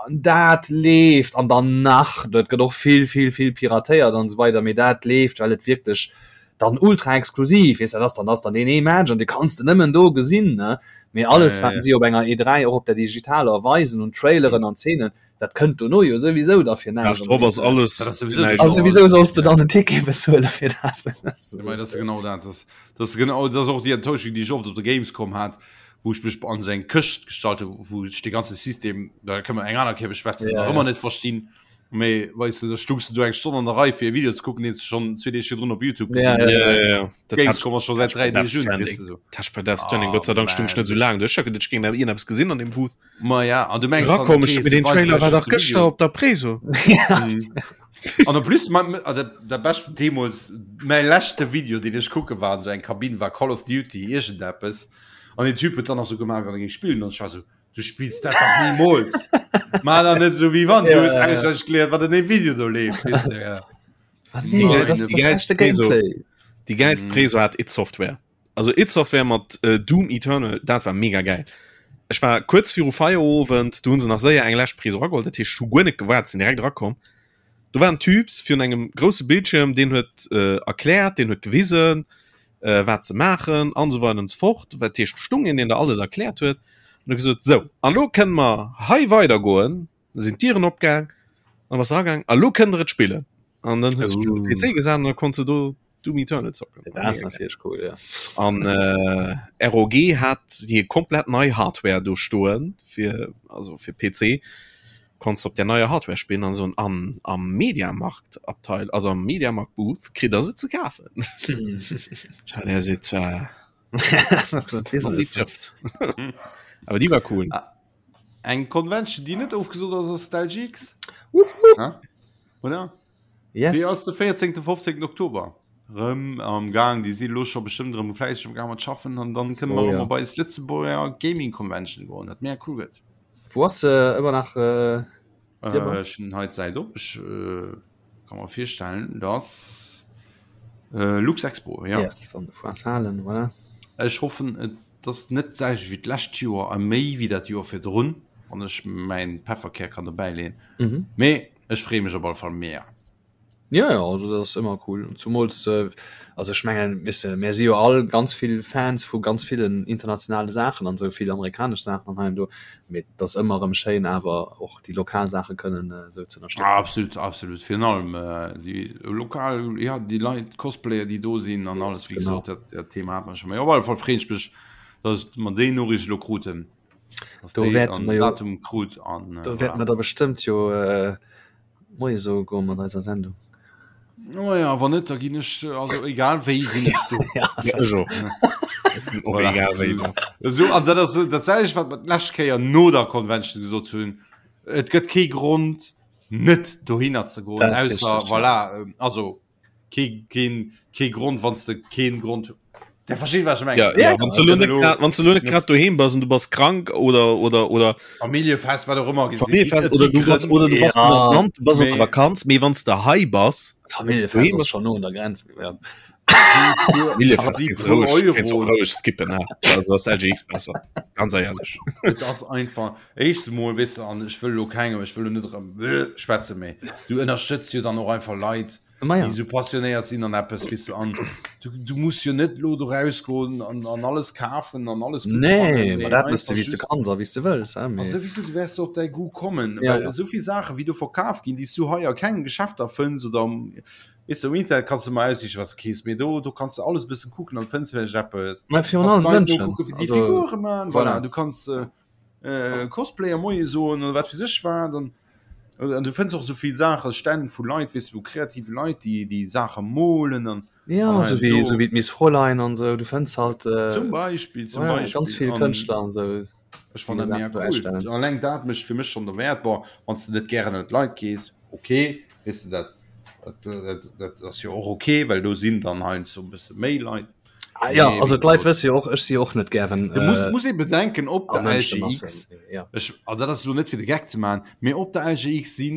an dat leeft an dann nach dat gëtt och vill vill vill piratéiert an esou weider mee dat leeft well et wierklech dann ultra exklusiv is dat ass dann ass dann deen ee Match an dee kanns de nëmmen do gesinn ne mee alles wat si op enger E3 och op der digitaler weisen un Traileren an Zeenen dat kënnt dono jo souwisou da fir näischt drop ass alles Dat ass souwisou näischt. also wieso solls de dann en Ticket bezuele fir dat Ja, mei, dat ass genau dat. Das, das, ist genau, das ist och déi Enttäuschung, déi ech oft op der Gamescom hat, wou ech mech an sou eng Këscht gestallt hu, wou ech de ganze System, da kënne mer eng aner Kéier beschwätzen, Ja, nach ja. ëmmer net verstinn. Mee weess de, da stungs du do eng Stonn an der Rei fir e Video ze kucken, deen s de schonn zwee Deeg virdrun op YouTube Ja, gesinn hues. Ja, ja, ja. Dat hat Gamescom ass scho säit dräi Death Deeg un, Stranding. weess de sou. Dat hat bei Death Stranding, Ah, Gott sei Dank stung ech net sou man. laang do. Ech hat geduecht, ech géing nach iergendeppes gesinn an deem Booth. Ma ja, an du mengs dann, Rakomm, okay, ech se den weisen Trailer war vläicht dach just de gëschter Video. op der Preso. An en plus ma, ma, der, der bescht deemools mäi leschte Video, deen ech kucke war an sou eng Kabinn war Call of Duty iergendeppes. An den Typ huet dann nach sou gemaach, wéi wann e géing spillen. An ech war sou, du spills dat dach nimools. Maach dach net sou, wéi wann. Du Ja, hues ja, ja. auswenneg geléiert, wat an deem Video do leeft, weess de, ja. Ah, nee, Nein, das, das die ist geilste echte Preso. Gameplay. Déi geilst Mhm. Preso hat id Software. Also id Software mat äh, Doom Eternal, dat war mega geil. Ech war kuerz viru Feierowend, do hunn se nach séier eng lescht Preso rageholl, dat heescht, ech hu guer net gewaart, sinn direkt erakomm. Do war en Typs virun engem grousse Bildschirm, deen huet äh, erkläert, deen huet gewisen, äh, wat ze maachen an esou weider an esou fort. Dat heescht, do stung een, deen der alles erkläert huet an huet gesot, sou, an elo kënne mer hei weidergoen. Da sinn d'Dieren opgaang, an bass eragaang, a lo kënnt der et spillen. An dann hues du dech op den PC gesat an da konns de do Doom Eternal zocken. Dat ass natierlech cool, ja. An äh, ROG hat hir komplett nei Hardware do stoen fir also fir PC konns op der neier Hardware spillen an so an am Mediamarkt Abteil also am Mediamarkt Booth kritt der se ze kafen. Tja, der se zwar awer déi war cool. Ah, Eng Convention, déi net ofgesot ass, ass d'LGX. Oder? Yes. Déi ass de 14. 15. Oktober. Rëm am Gang, déi si lo scho bestëmmt rëm fläisseg am Gang mat schaffen an dann kënne mer Oh, rëm ja. op eis Lëtzebuerger Gaming Convention goen, dat mega cool gëtt. Wo ass se ëmmer nach? Äh, Äh, ech hunn hei d'Säit op, ech äh, kann mer virstellen, dass äh, Luxexpo, ja. Yes, an de Foires Halen, voilà. Ech hoffen et. Ass net d'selwecht wéi d'lescht Joer a méi wéi dat Joer virdrun, wann ech mäin Pefferkär kann dobäi leeën. Mhm. Mee ech freeë mech op alle Fall mega. Ja, ja, also dat ass ëmmer cool. Zumools, äh, also ech mengen, weess de, mär si jo all ganz vill Fans vu ganz villen internationale Saachen an esou vill amerikanesch Saachen an hei an do, mee et ass ëmmer erëm schéin awer och déi lokal Saache kënnen esou ze ënnerstëtzen. Absolut, absolut. Virun allem déi lokal, ja, déi Leit, d'Cosplayer, déi do sinn an alles, wéi gesot, dat, dat Thema hat mer scho. Mee op alle Fall freeën ech mech, dass mer déi Noriicht elo kruten. Dass Do wäerte mer jo, Datum krut an do wäerte mer da bestëmmt jo Moie soe goe mat eiser Sendung. Oh ja, wann net, da ginn ech, also egal wéi sinn ech do. Ja, ech och. Ech bin och egal wéi do. So, an dat ass dat selwecht, wat mer d'lescht Kéier no der Convention gesot hunn. Et gëtt kee Grond, net dohinner ze goen, Dat ass ausser, richtig, ja. voilà, also kee, keen, kee Grond, wann s de keen Grond Der versteet wat ech mengen. Ja, ja, wann du lo net grad, wann du lo net grad doheem bass an du bass krank oder oder oder Familljefest wat och ëmmer gesinn. Familljefest oder du bass oder du bass Ja. an Land, du bass an der Mee- Vakanz, mee wann du hei bass, Familljefest ass schon no un der Grenz. Ja. Familljefest déi kannst du puer roueg, kannst du Euro. och roueg skippen, ne? Also ass LGX besser, ganz ehrlech. Et ass einfach éischtens emol weess de an ech wëll elo kengem ech wëll elo net erëm schwätze mee du ënnerstëtz jo dann och einfach Leit Ma ja. déi sou passionéiert sinn an eppes weess de an du, du muss jo net lo do rausgoen an, an alles kafen an alles gutt Nee, fannen, ma mee dat mëss du einfach wéi s du just kanns a wéi s du wëlls, hein, a mee souwisou du wäers du op däi Goût kommen, Ja, well ja. esou vill Saache wéi do verkaf ginn, déi s du hei a kengem Geschäfter fënns oder am weess de um Internet kanns du ëmmer aussichen wat s de keefs, mee do do kanns de alles e bëssen kucken an fënns vläicht eppes. Ma virun Kanns allem Leit d'Mënschen, nokucken, wéi déi also Figure man, voilà, voilà. du kanns äh, Cosplayer Moie soen oder wat fir sech wat an an du fënns och sou vill Saache Stänn vu Leit weess de vu kreative Leit déi déi Saache molen an Ja, an sou hei an wéi do. sou wéi d'Miss Fräulein an sou, du fënns halt äh, Zum Beispill, zum ja, Beispill ganz vill an Kënschtler an sou. ech déi fannen dat Saachen mega do cool. ausstellen. Alleng dat mécht fir mech schonn derwäert. Bon, wann s de net gären ënner d'Leit gees, okay, weess de dat dat dat dat ass jo och okay, well do sinn dann heiansdo e bësse méi Leit. Ah, ja, Mee also wéi d'Leit gesot, wësse jo och, ech si jo och net gären Du muss, äh, muss ee bedenken, op a der LGX, Mënschemassen. Ja. ech, an dat ass elo net fir de Geck ze maachen, mee op der LGX si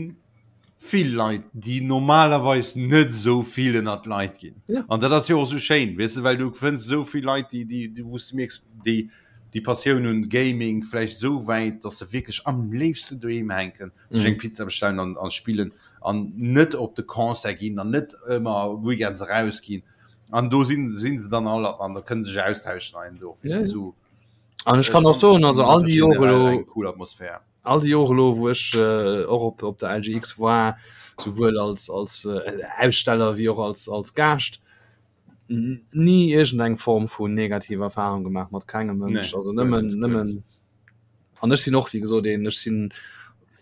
vill Leit, déi normalerweis net esou vill ënnert d'Leit ginn. Ja. An dat ass jo och esou schéin, weess de, well du fënns esou vill Leit, déi, déi, déi, wou s du mierks, déi déi Passioun hunn, Gaming, vläicht esou wäit, datt se wierklech am léifsten doheem hänken, sech eng Mhm. Pizza bestellen an, an spillen an net op de Concert ginn an net ëmmer weekends erausginn. An do sinn sinn se dann all an da kënne sech austauschen ein do. Ja, ja. So, An ech kann och soen, also all déi Jore elo, eng cool Atmosphär. all déi Jore elo, wou ech äh, och op, op der LGX war, souwuel als, als äh, Aussteller wéi och als, als Gaascht, ni iergendeng Form vun negativer Erfahrung gemaach mat kengem Mënsch. Nee, Also guer nëmmen, net, guer nëmmen net. an ech sinn och wéi gesot een, ech sinn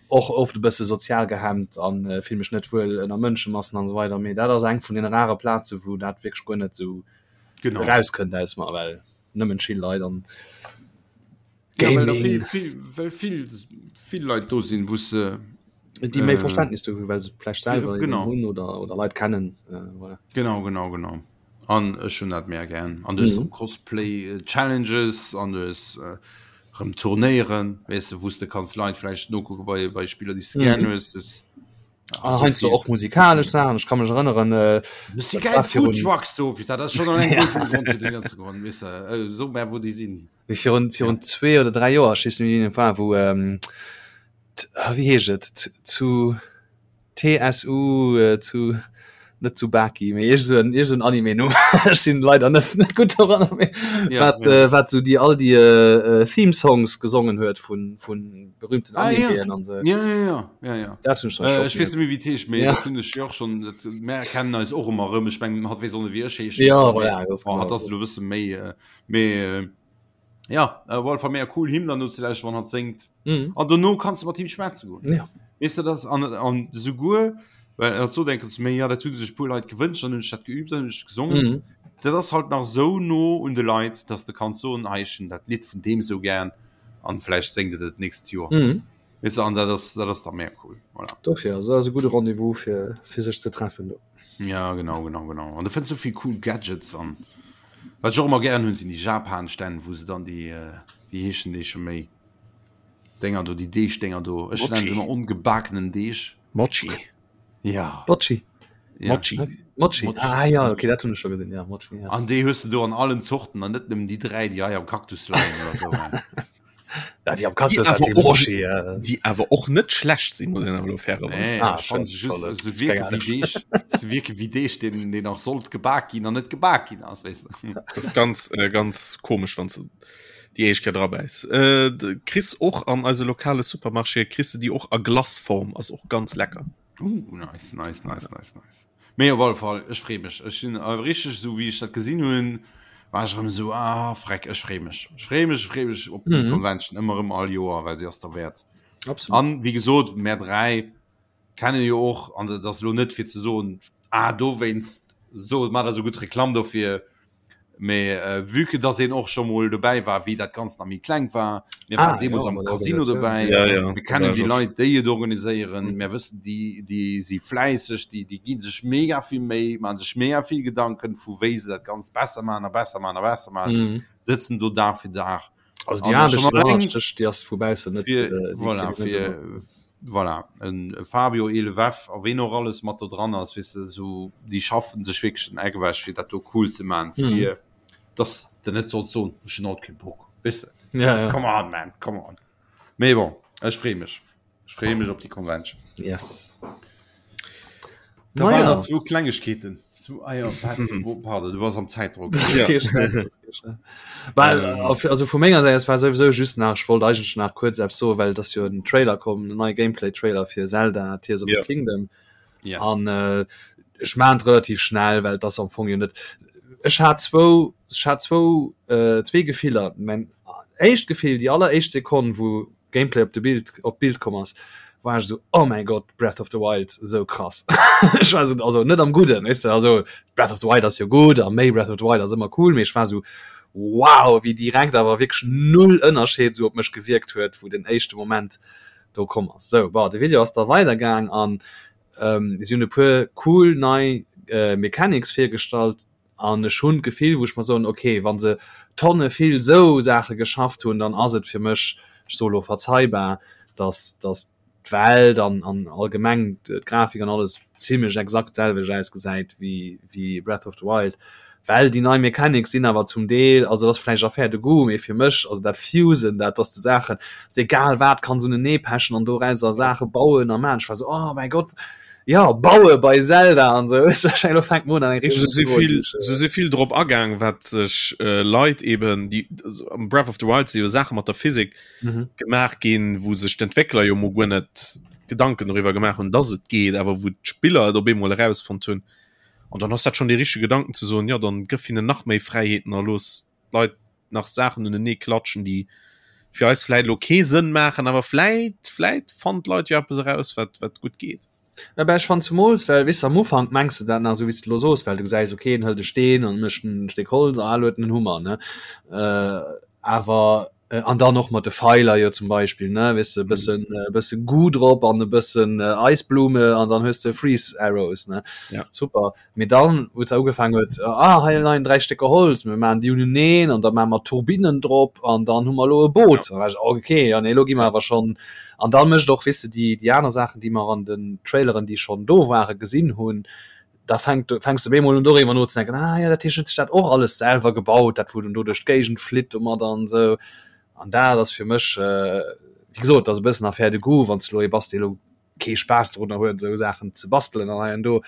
och oft e bësse sozial gehemmt an äh, fill mech net wuel ënner Mënschemassen an esou weider, mee dat ass eng vun den rare Plaze wou dat wierklech guer net esou Genau. erauskënnt aus mer, well nëmmen chill Leit an Ja, well da Gaming. vill, vill, well vill, vill Leit do sinn, wou se déi méi äh, Verständnis dofir hunn, well se vläicht selwer genau. hunn oder, oder Leit kennen. Äh, voilà. Genau, genau, genau. An ech hunn dat mega gär. An du hues Mhm. Cosplay äh, Challenges an du hues äh, rëm Turnéieren, weess de, wou s de kanns Leit vläicht nokucke bei, bei Spiller, déi s de gär Mhm. hues. Das, ja, Ah, so heiansdo vill. och musikalesch Saachen. Ech ka mech erënneren, äh, Du si dat geil war virun, Food Trucks do, Peter, dat ass schon alleng ja, dee Grond fir dohinner ze goen, weess de, äh, so mär wou déi sinn. wéi virun, virun zwee oder dräi Joer, ech weess net méi wéi et war, wou, ähm, t, ah, wéi heescht et, zu, zu TSU äh, zu net zu Baki mee iergend sou en iergend sou en Anime Numm ech sinn leider net net gutt doranner mee Ja, wat ja. äh, wat sou déi all déi äh, äh, Theme Songs gesongen huet vun vun berühmten Ah, ja. Animeen an sou. Ja, ja, ja, ja, ja. Dat hunn ech dann Äh, scho ech weess net méi wéi et heescht, mee Ja. dat hunn ech jo och schonn, dat mär kennen eis och ëmmer erëm. Ech mengen hatt weess och net wéi ech heeschen, Ja, mee voilà, dat ass bon, hatt genau ass esou. elo e bësse méi äh, mee äh, ja, äh, op alle Fall mega cool him dann no ze lauschteren, wann hatt séngt. Mhm. An dono kanns du mat him schwätze goen. Ja. Weess de das an, an souguer well hatt sot eng Kéier zu mir, ja dat hu sech puer Leit gewënscht, dann hunn ech dat geübt, dann hunn ech gesongen. Mhm. Dat ass halt nach sou no un de Leit, dass de kanns soen, hei ech hunn dat Lidd vun deem sou gär an vläicht séngt et et d'nächst Joer. Mhm. Weess de, an dat ass dat ass da mega cool. Voilà. Dofir, also ass e gudde Rendez-vous fir, fir sech ze treffen do. Ja, genau, genau, genau. An du fënns sou vill cool Gadgets an wat ech och ëmmer gären hunn, sinn déi Japan-Stänn, wou se dann déi, wéi heeschen déi scho méi? Dénger do, déi Deegdénger do. Ech nennen se Mochi. ëmmer ongebakenen Deeg. Mochi. Ja. Bocci. Ja. Mochi. Okay. Mochi. Mochi. Ah ja, okay, dat hunn ech scho gesinn. Ja, Mochi, ja. An déi hues du do an allen Zorten an net nëmmen déi 3 déi hei am Kaktus leien oder so. Ja, déi am Kaktus, awer dat si och- Mochi. Ja. Déi awer och net schlecht sinn, muss een awer elo fairerweis Nee, Ah, ech fand se schön, just, toll. se wierke Keine wéi Deeg, se wierke wéi Deeg, deen, deen nach sollt gebak ginn an net gebak ginn ass, weess de. Das ist ganz äh, ganz komisch wann du déi éischt Kéier drabäiss. Äh, de- kriss och an eise lokale Supermarché kriss du déi och a Glaceform, ass och ganz lecker. Uh, nice, nice, nice, nice, nice. Mee op alle Fall, ech free mech. Ech sinn äh, richteg esou wéi ech dat gesinn hunn, war ech erëm esou ah freck, ech free mech. Ech free mech, ech free mech op déi Mhm. Convention ëmmer erëm all Joer, well se ass derwäert. Absolut. An wéi gesot, mär 3 kennen jo och, an dat ass elo net fir ze soen, ah dowéinst so maacht der esou gutt Reklamm dofir, Mee äh, vue que dass een och scho mol dobäi war, wéi dat Ganzt nach méi kleng war, mir waren Ah, deemools ja, am bei der Casino Organisatioun. dobäi, Ja, ja, mir kennen da déi war Leit, déi et organiséieren, Mhm. mir wëssen, déi, déi si fläisseg, déi, déi gi sech mega vill Méi, maache sech mega vill Gedanken, vu wéi se dat Ganzt besser maachen a besser maachen a besser maachen, Mhm. sëtzen do Dag fir Dag. Also déi An Aarbecht, schon déi alleng Aarbecht, déi ass vu baussen net, fir, äh, déi voilà, kritt een net esou fir, mat. voilà, en Fabio Elewef a ween och alles mat do dran ass, weess de, sou déi schaffen sech wierklech den Eck ewech fir dat do cool ze man, Mhm. fir dass de net solls soen, ech hunn haut kee Bock, weess de. Ja, ja. Come on man, come on. Mee bon, ech free mech, ech free mech op déi Convention. Yes. Da Naja. waren nach zwou Klengegkeeten. Zu, ah ja, was, wo, pardon, du warst am Zeitdruck. Das ist Ja. kein Stress, das ist kein Stress. Well, Ähm. auf, also vu menger Säit, es war sowieso just nach, ich wollt eigentlich nach kurz eppes soen, well das jo en Trailer komm, en neie Gameplay-Trailer fir Zelda Tears of Ja. the Kingdom. Yes. An äh, ech maan et relativ schnell, well das am Fong jo net. Ech hat zwou, ech hat zwou, äh, zwee Gefiller. Mein éischt Gefill, déi alleréischt Sekonn, wou Gameplay op de Bild op d'Bild komm ass, war ech esou oh mäi Gott Breath of the Wild esou krass. Ech war esou also net am Gudden weess de also Breath of the Wild ass jo gutt a méi Breath of the Wild ass ëmmer cool, mee ech war esou wow wéi direkt awer wierklech null Ënnerscheed esou op mech gewierkt huet wou den éischte Moment do komm ass. Sou bon de Video ass da weidergaang an ähm, si hunn e puer cool nei äh, Mechanics virgestallt, An ech hunn d'Gefill, wou ech mer soen, okay, wa se Tonne vill esou Saache geschafft hunn, dann ass et fir mech, ech soe lo verzeibar, datt datt d'Welt an an allgemeng d'Grafik an alles zimlech exakt d'selwecht ausgesäit wéi wéi Breath of the Wild. Well déi nei Mechanics sinn awer zum Deel, also dat ass vläicht Affaire de goût, mee fir mech, also dat Fusen, dat datt s de Saachen, s de egal wat kanns uneneepechen an dorauser Saache bauen a maachen, ech war esou, oh mäi Gott, Ja baue bei Zelda an sou elo fänkt Mona eng Se richteg si vill, Iwwerleeung. se si vill drop agaang, wat sech äh, Leit eben, déi also am Breath of the Wild si jo Saache mat der Physik Mhm. gemaach ginn, wou sech d'Entwéckler jo mol guer net Gedanken doriwwer gemaach hunn, dass et geet, awer wou d'Spiller et op eemol erausfonnt hunn. An dann ass dat schonn dee richtege Gedanken ze soen, jo dann gëff hinnen nach méi Fräiheeten a looss d'Leit nach Saachen unenee klatschen, déi fir eis vläit elo kee Sënn maachen, awer vläit, vläit fannen d'Leit jo eppes eraus, wat, wat gutt geet. Ja, ben, ech fannen zumools, well, weess de, am Ufank mengs de dat nach esou, wéi s de elo soos, well du gesäis, okay, en hëlt e Steen an mécht en Stéck Holz, ah, elo huet en en Hummer, ne? Awer, an dann och mat de Feiler jo zum Beispill, ne, weess de, e bëssen, e bësse Goo drop an e bëssen Eisblume an dann hues de Freeze Arrows, ne? Ja. Super. Mee dann, wou et da ugefaangen huet, ah, hei leien 3 Stécker Holz, mir maachen déi uneneen an da maache mer Turbinnen drop an dann hu mer elo e Boot. Da war ech, okay, ja nee, elo gi mer awer schonn. An da mécht och, weess de, déi, déi aner Saachen, déi mer an den Traileren, déi schonn do waren, gesinn hunn, da fänkt, fänks de op eemol un doriwwer nozedenken, ah ja, dat heescht, huet sech dat och alles selwer gebaut, dat wou den do duerch d'Géigend flitt domadder an esou. An dat ass fir mech, wéi gesot, dat ass e bëssen Affaire de goût, wann s de elo ee bass, dee elo kee Spaass drunner huet esou Saachen ze bastelen an hei an do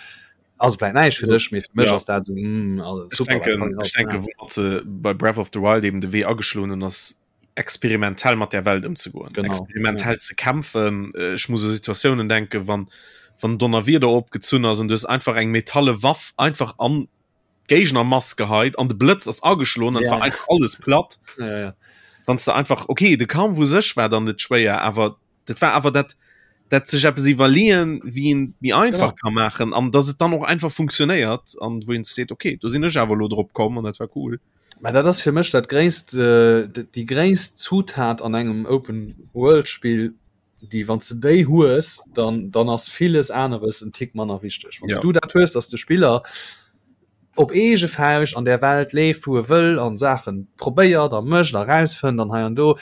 ass et vläit näischt fir dech, mee fir mech Ja. ass dat esou mm, also Ech super, dat denken, kann een ech alles denken, maachen. wou se bei Breath of the Wild eben de Wee ageschloen hunn, ass experimentell mat der Welt ëmzegoen, Genau, experimentell ze kämpfen. Äh, Ech muss u Situatiounen denken, wann wann Donnerwieder opgezunn ass an du hues einfach eng metalle Waff einfach an d'Géignermass geheit an de Blëtz ass ageschloen an Ja. war einfach alles platt. Ja, ja, ja. Wann du einfach okay, de Kampf u sech war dann net schwéier, awer dat war awer dat dat sech eppes iwwerleeën, wéi een méi einfach Genau. ka maachen an dass et dann och einfach funktionéiert an wou een seet okay, do sinn ech awer elo drop komm an dat war cool. Mä dat ass fir mech dat gréisst, äh, déi gréisst Zutat an engem Open World Spill, déi wann s de déi hues, dann dann ass villes aneres en Tick manner wichteg. Wann s Ja. du dat hues, dass de Spiller op eege Fauscht an där Welt leeft, wou e wëll an Saachen probéiert a mécht a rausfënnt an hei an do.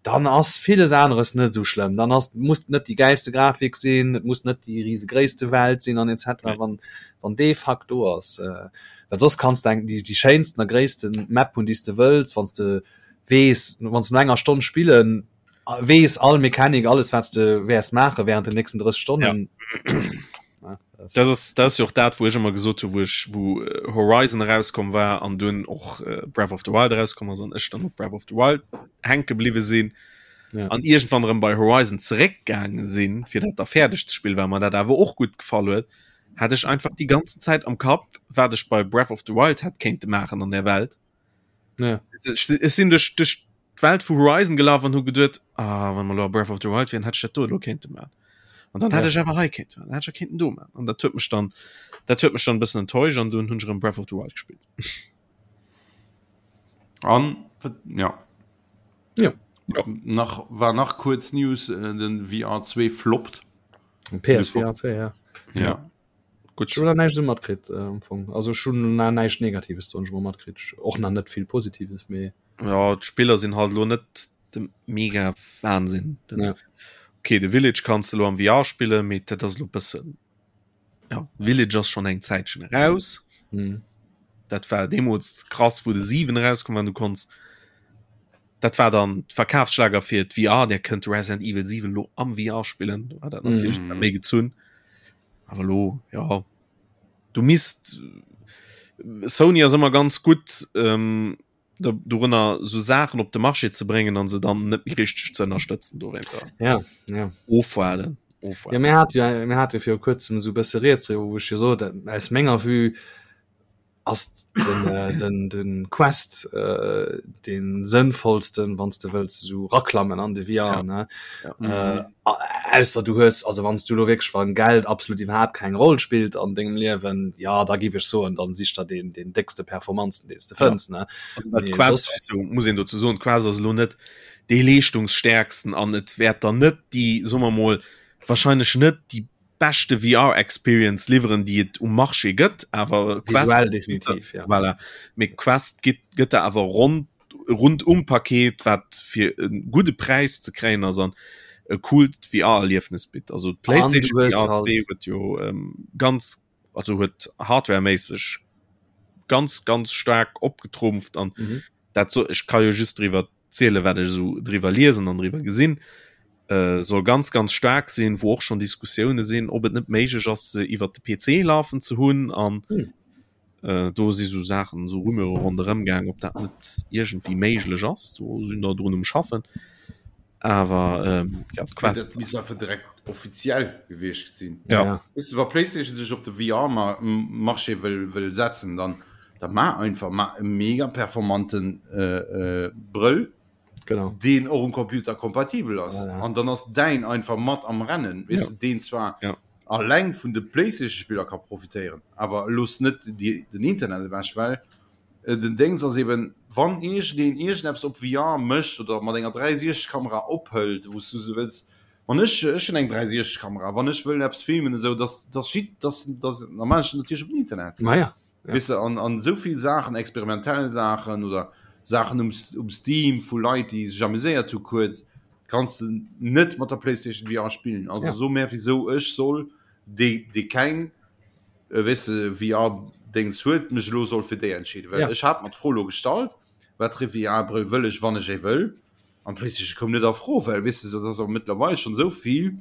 Dann ass villes aneres net esou schlëmm. Dann ass muss net déi gäilste Grafik sinn, et muss net déi risegréisste Welt sinn an etc. Nee. Wann, wann dee Fakt do ass. Äh, well soss kanns de eng déi, déi schéinsten a gréissten Map hunn, déi s de wëlls, wann s de weess, wann s de no enger Stonn spillen weess all Mechanik, alles wat s de wäers maache während den nächsten 30 Stonnen. Ja. Ja, das, das ist, das ist jo och dat, wou ech ëmmer gesot hu, wou ech wou äh, Horizon erauskomm war an dunn och äh, Breath of the Wild erauskomm ass an ech dann op Breath of the Wild hänke bliwwe sinn. Ja. An iergendwann erëm bei Horizon zeréckgaange sinn, fir dat da fäerdeg ze spillen, well mer dat awer och gutt gefall huet, hat ech einfach déi ganzen Zäit am Kapp, wat ech bei Breath of the Wild hätt kéinte maachen an der Welt. Ja. Ech sinn duerch duerch d'Welt vu Horizon gelaf an hu geduet, ah, wann mer lo a Breath of the Wild wieren, hätt ech dat do elo kéinte maachen. An dann ja. hätt ech awer hei kéinte maachen, hätt ech kéinten do maachen. An dat huet mech dann dat huet mech dann e bëssen enttäuscht an dunn hunn ech erëm Breath of the Wild gespillt. An ja. Ja. ja. Nach war nach kuerz News äh, den VR2 floppt. PSVR 2 ja. Ja. ja. Gutt. Ech hunn nach näischt esou matkritt am Fong. Also ech hunn nach näischt Negatives soen ech mol matkritt. Och nach net vill Positives, mee. Ja, d'Spiller sinn halt elo net de mega Wahnsinn. Ja. Okay, de Village kanns de elo am VR spillen, mee dat ass elo bëssen ja, Village ass schonn eng Zäitchen eraus. Mhm. Dat war deemools krass, wou de 7 erauskomm war, du konns dat war dann d'Verkafsschlager fir d'VR, der kënnt Resident Evil 7 lo am VR spillen, war dat natierlech mm. méi gezunn. Awer lo ja du misst Sony ass ëmmer ganz gutt ähm, dorënner sou Saachen op de Marché ze bréngen an se dann net méi richteg ze ënnerstëtzen dowéinter. Ja, ja. Ofwaarden. Ofwaarden. Ja, mir hat ja, mir hat jo viru kuerzem esou bësse rieds driwwer, wou ech jo sot, aus menger Vue ass den, äh, den, den Quest äh, den sënnvollsten, wann du wëlls so raklammen an de VR ja. ne ja. Äh, mhm. ausser du hues also wann du lo wirklich wann Geld absolut iwwerhaupt keng Roll spielt an dengem Liewen ja da gi ich so an dann sich da den den dickste Performanzen den du fënns ja. ne also, Quest, also, muss een dazu soen Quest ass lo net déi leeschtungsstärksten an et wäert dann net déi soen mer mol wahrscheinlech net déi beschte VR Experience liwweren déi et um Marché gëtt awer visuell definitiv ja. Voilà. Mee Quest gëtt gëtt der awer rond rundum Paket wat fir e gudde Präis ze kréien ass an e coolt VR Erliefnis bitt. Also d'PlayStation VR 2 huet jo ähm, ganz also huet hardwareméisseg ganz ganz staark opgetrumpft an mhm. dat so ech ka jo just driwwer ziele wat ech esou driwwer liesen an driwwer gesinn, äh, soll ganz ganz staark sinn, wou och schon Diskussioune sinn, ob et net méiglech ass se iwwer de PC lafen ze hunn an hm. äh, do si sou Saachen sou Rumeure ronderëm gaang, ob dat net iergendwéi méiglech ass, do sinn der drun um schaffen. Awer ähm, ja, d'Quest misst einfach direkt offiziell gewiescht sinn. Ja. ja. Weißt du, wa PlayStation sech op de VR-Marché wëll, wëll setzen, dann Da maach einfach maach e mega performanten äh, äh, Brëll genau deen och um Computer kompatibel ass an ja. dann ass däin einfach mat am Rennen weess ja. deen zwar ja. alleng vun de PlayStation Spiller ka profitéieren awer looss net die, den Internet ewech well äh, den Dings ass eben wann iergendeen iergendeppes op VR mécht oder mat enger 360 Kamera ophëlt wou du se wëlls wann ech ech hunn eng 360 Kamera wann ech wëll eppes filmen esou dass dass dass dass normal natierlech op den Internet Ma ja. Ja. Weißt du, an, an so vill Saachen, experimentell Saachen oder Saachen um, um Steam vu Leit, déi sech amuséiert hu kuerz, kanns du net mat der PlayStation VR spillen. Also ja. so mehr wieso ech soll déi, déi keng äh, weißt du, VR-Dings huet, mech lo soll fir déi entscheeden. Well ja. ech hat mer d'Fro lo gestallt, wat fir VR-Brëll wëll ech, wann ech ee wëll. An d'PlayStation koum net a Fro, well weess de, dat ass och mëttlerweil schonn esou vill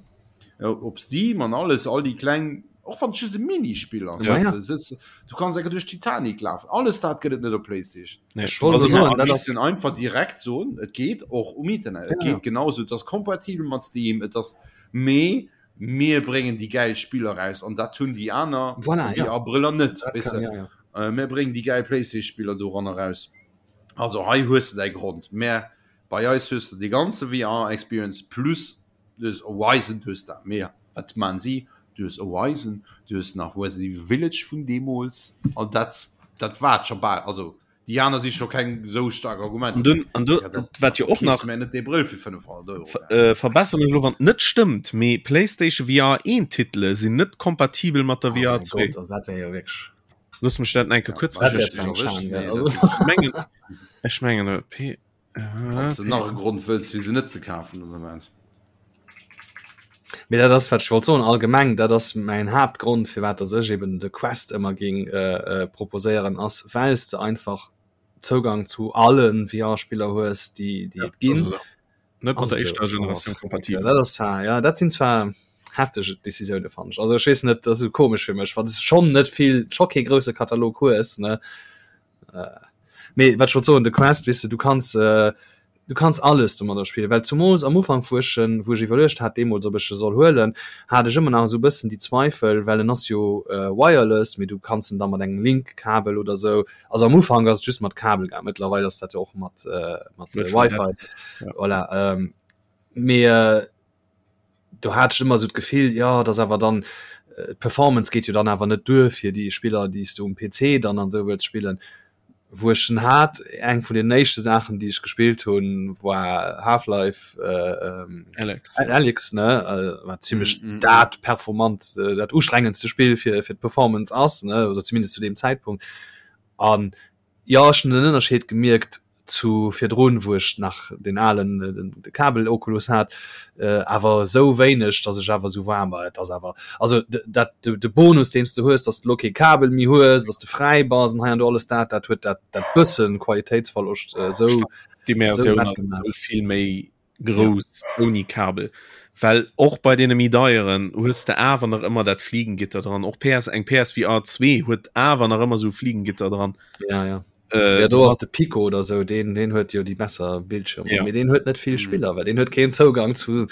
op Steam an alles, all déi kleng, och wann et just e Minispill ass, Ja, weess ja. de, sëtz, du kanns enker duerch d'Titanic lafen, alles dat gëtt et net op PlayStation. Nee, Ech wollt Also soen, mir dat ass- missten einfach direkt soen, et geet och um Internet, et Ja. geet genauso, et ass kompatibel mat Steam, et ass, mee mir bréngen déi gäil Spiller raus an dat hunn déi aner Voilà, ja. VR-Brëller net, Dat weess kann, de. ja, ja. Äh, Mir bréngen déi gäil PlayStation-Spiller doranner raus. Also hei hues de däi Grond, mä bei eis hues de déi ganze VR Experience plus du hues Horizon, du hues dat, mä wat maan si? Du hues Horizon, du hues nach Resident Evil Village vun deemools an dat dat war et scho bal. Also déi aner si scho keng esou staark Argumenter. An dunn, an du, wat jo och nach. Mä net dee Brëll fir 500 Euro. Äh, verbessere mech elo wann et net stëmmt, mee PlayStation VR 1 Titele sinn net kompatibel mat der VR 2. Oh mäin Gott, dat wär jo wierklech. Looss mech dat enke kuerz recherchéieren. Ech mengen, ech mengen, P. Falls du nach e Grond wëlls fir se net ze kafen den Ament. Mee dat ass wat ech wollt soen, allgemeng dat ass mäin Haaptgrond firwat dass ech eben de Quest ëmmer géing proposéieren ass well s de einfach Zougang zu alle VR-Spiller hues déi déi et ginn. Net mat der éischter Generatioun kompatibel. Dat ass zwar ja dat sinn zwar heftege Decisioune fannen ech. Also ech weess net, dat ass esou komesch fir mech, wann s de schonn net vill scho kee grousse Katalog hues ne. Mee wat ech wollt soen, de Quest weess de du kanns du kanns alles domadder spillen, well zumools am Ufank wou ech en wou ech iwwerluecht hat deemools ob ech e soll huelen, hat ech ëmmer nach esou e bëssen déi Zweifel, well en ass jo wireless, mee du kanns en da mat engem Link-Kabel oder esou, also am Ufank ass et just mat Kabel gaang, mëttlerweil ass dat jo och mat mat Wi-Fi, voilà, mee do hat ech ëmmer esou d'Gefill, jo et ass awer dann, d'Performance geet jo dann awer net duer fir déi Spiller déi s du um PC dann an esou wëlls spillen. Wou ech en hat, eng vun den éischte Saachen déi ech gespillt hunn, war Half-Life Alyx, Alyx ne, wat zimlech dat performant, dat ustrengendste Spill fir fir d'Performance ass ne, oder zumindest zu deem Zäitpunkt an Jo, ech hunn den Ënnerscheed gemierkt zu virdrun, wou ech nach den alen de Kabel Oculus hat, awer esou wéineg, datt ech awer esou war, ma et ass awer, also dat de Bonus deen s de hues, datt s de elo kee Kabel méi hues, datt s de fräi bass an hei an do alles dat, dat huet dat dat bëssen Qualitéitsverloscht esou D'Immersioun ass esou vill méi grouss ouni Kabel, well och bei deene méi deieren hues de awer nach ëmmer dat Fliegengitter dran. Och PS eng PSVR 2 huet awer nach ëmmer sou Fliegengitter dran. Ja, ja. Äh, ja, do ass de Pico oder sou, deen, deen huet jo déi besser Bildschirmer. Ja. Mee deen huet net vill mhm. Spiller, well deen huet keen Zougang zu,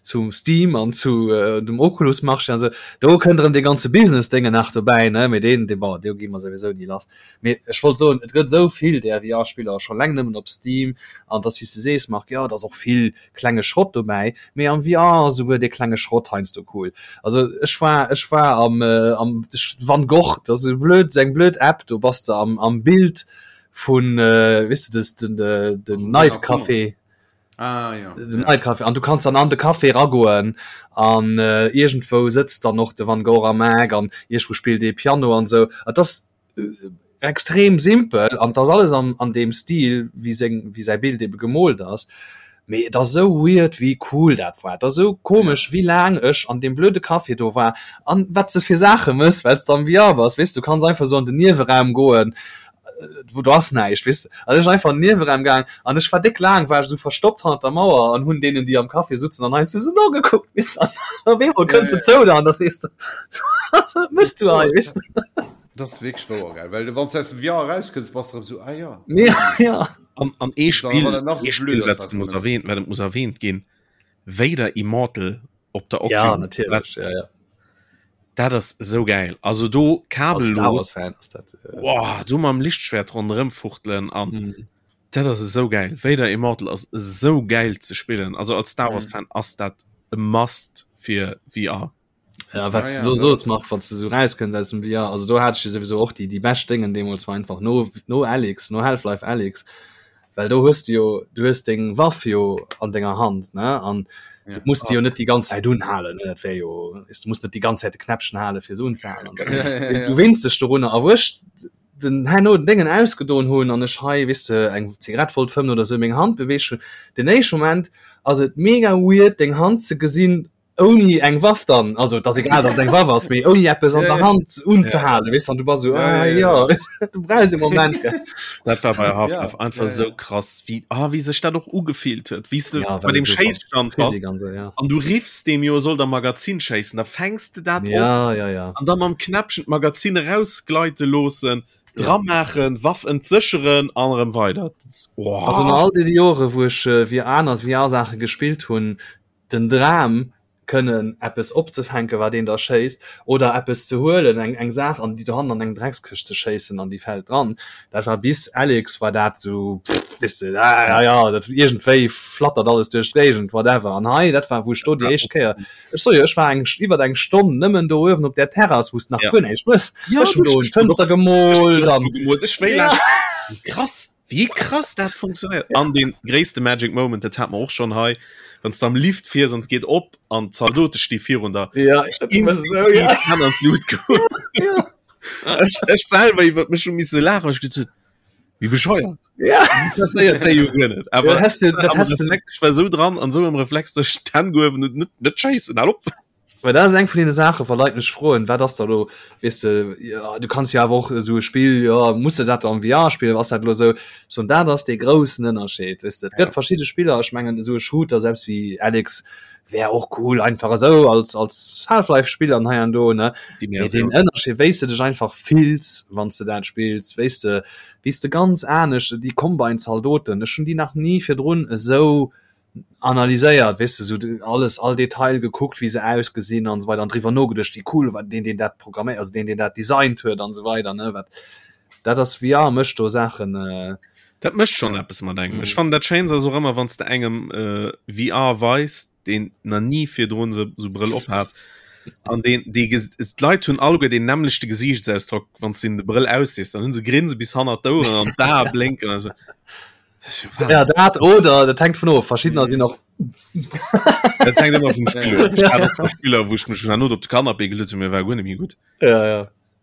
zum Steam an zu äh, dem Oculus Marché. Also, do kënnt erëm de ganze Business-Dinge nach dobäi, ne? Mee deen, dee, bon, do gi mer souwisou ni lass. Mee ech wollt soen, et gëtt esou vill där VR-Spiller scho leng nëmmen op Steam an et ass wéi s de sees, Marc, jo et ass och vill klenge Schrott dobäi, mee am VR ass esouguer dee klenge Schrott heiansdo cool. Also ech war ech war am am Van Gogh, dat ass e blöd eng blöd App, do bass de am am Bild vun weess de des den den Night Café. Ah, ja. Den ja. Café. An du kannst dann an de Café ragoen an äh, irgendwou sëtzt dann och de Van Gogh am Eck an irgendwou spillt ee Piano an sou. Et ass äh, extrem simpel an das alles an, an dem Stil wie seng wie säi Bild ebe gemoolt ass. Mee et ass sou weird wéi cool dat war. Et ass sou komesch ja. wéi laang ech an dem blöde Café do war an wat s de fir Saache mëss, well s de am VR bass. Weess du kanns einfach sou an den Nieweraum goen wou do ass näischt weess de. An ech einfach an den Nieweraum gaang an ech war déck laang war ech esou verstoppt hannert der Mauer an hunn deenen déi am Café sutzen an heiansdo esou nogekuckt weess de. An op eemol kënns de zou der an da sees de was mëss du hei weess de. Dat ass wierklech wouer gell, well wann s de aus dem VR erauskënns bass de erëm esou ah jo. Ja ja. An an ee Spill, ee Spill wat muss erwähnt, wat muss erwähnt ginn, Vader Immortal op der Oculus. Ja natierlech, ja ja. Dat ass esou gäil. Also do kabellos. Fan ass dat. Äh... Wow, do mam Lichtschwert ronderëm fuchtelen an mm. dat ass esou gäil. Vader Immortal ass esou gäil ze spillen. Also als Star Wars Fan ass dat e Must fir VR. Ja, wat ah, ja, du sos mach wann du so rauskënns aus dem VR also do hat ich sowieso och die die best Dingen deemools war einfach no no Alyx no Half-Life Alyx well do hues du jo du hues deng Waff jo an denger Hand ne an ja. du musst jo net die ganz Zeit unhalen ne dat wär jo ist du musst net die ganz Zeit de Knäppchen hale fir se unzehalen ja, ja, ja. du winst dech dorunner a wurscht den herno den Déngen ausgedon hunn an ech hei weess de eng Zigarett wollt fëmmen oder sou meng Hand beweegt hunn den éischte Moment ass et mega weird deng Hand ze gesinn ouni eng Waff dann, also et ass egal, dass et eng Waff ass, mee ouni eppes an der Hand unzehalen, weess an du bass esou, ah jo, du brauchs e Moment, gell. Dat war bei Half-Life einfach esou krass, wéi, ah, wéi sech dat och ugefillt huet, wéi s de bei deem Schéisstand bass an du riffs deem jo, e soll der Magazin schéissen, da fänks de dat op an da mam Knäppchen d'Magazin erausgleite loossen, dramaachen, Waff entsécheren an erëm weider. Also no all deene Jore wou ech wéi aner VR-Saache gespillt hunn, den Dram kënnen eppes opzefänken, wat een da schéisst, oder eppes ze huelen, eng eng Saach an déi dohannen an eng Dreckskëscht ze schéissen an déi fält dran. Dat war bis Alyx war dat esou, pff, weess de, ah ja, ja, dat iergendwéi flattert alles duerch d'Géigend, whatever. An hei, dat war, wou ech do déi éischt Kéier, ech soe jo, ech war eng iwwer eng Stonn nëmmen do uewen op där Terrass, wou s de nach guer näischt hues. Ech hunn do un d'Fënster gemoolt an. Ech wéi laang, krass. Wéi krass dat funktionéiert! An dee gréisste Magic Moment, dat hat mer och schonn hei, wann s de am Lift fiers an et geet op an d'Zaldote sti virun der. Ja, ech dat ëmmer esou, ja. Hänn an d'Lut goen. Ja. Ech, ech selwer iwwer mech hu misse laachen, well ech geduet hunn, Wéi bescheuert. Ja. Interesséiert déi jo guer net. Awer Ja, hast du, dat awer hast das du, ech war sou dran an sou am Reflex, dass ech d'Hänn gehuewen hunn, net, net schéissen, hal op! Well dat ass eng vun deene Saachen, wa Leit mech froen, wat ass da lo, weess de, ja, du kanns jo awer och esou e Spill, jo, muss de dat am VR spillen, ass dat lo esou? Ech soen, dat ass dee groussen Ënnerscheed, weess de. Et gëtt verschidde Spiller, ech mengen esou e Shooter, selbst wéi Alyx, wär och cool einfach esou als, als Half-Life-Spill an hei an do, ne. Mee deen Ënnerscheed, wéi s de dech einfach fills, wann s de dat spills, wéi s de, wéi s de ganz anescht, déi Combine-Zaldoten, ech hunn déi nach ni virdrun esou analyséiert, weess de, sou alles, all Detail gekuckt, wéi se ausgesinn an esou weider an driwwer nogeduecht, wéi cool war deen, deen dat programméiert, also deen, deen dat designt huet an esou weider, ne, wat dat ass, VR mécht do Saachen. Dat mécht schonn eppes mat engem. Ech fannen dat Schéinst ass och ëmmer, wann s de engem VR weis, deen nach ni virdrun sou sou Brëll op hat an deen dee d'Leit hunn alleguer deen nämmlechte Gesiichtsausdrock, wann s de hinnen de Brëll aussees, dann hu se Grinse bis hannert d'Oueren an d'Ae blénken an esou. Ja, dat oder dat hängt vun of verschiedener sinn och Dat hängt ëmmer vum Spiller. Ech hat och scho Spiller, wou ech mech herno op de Canapé geluet hunn, mir war guer net méi gutt. Ja, ja.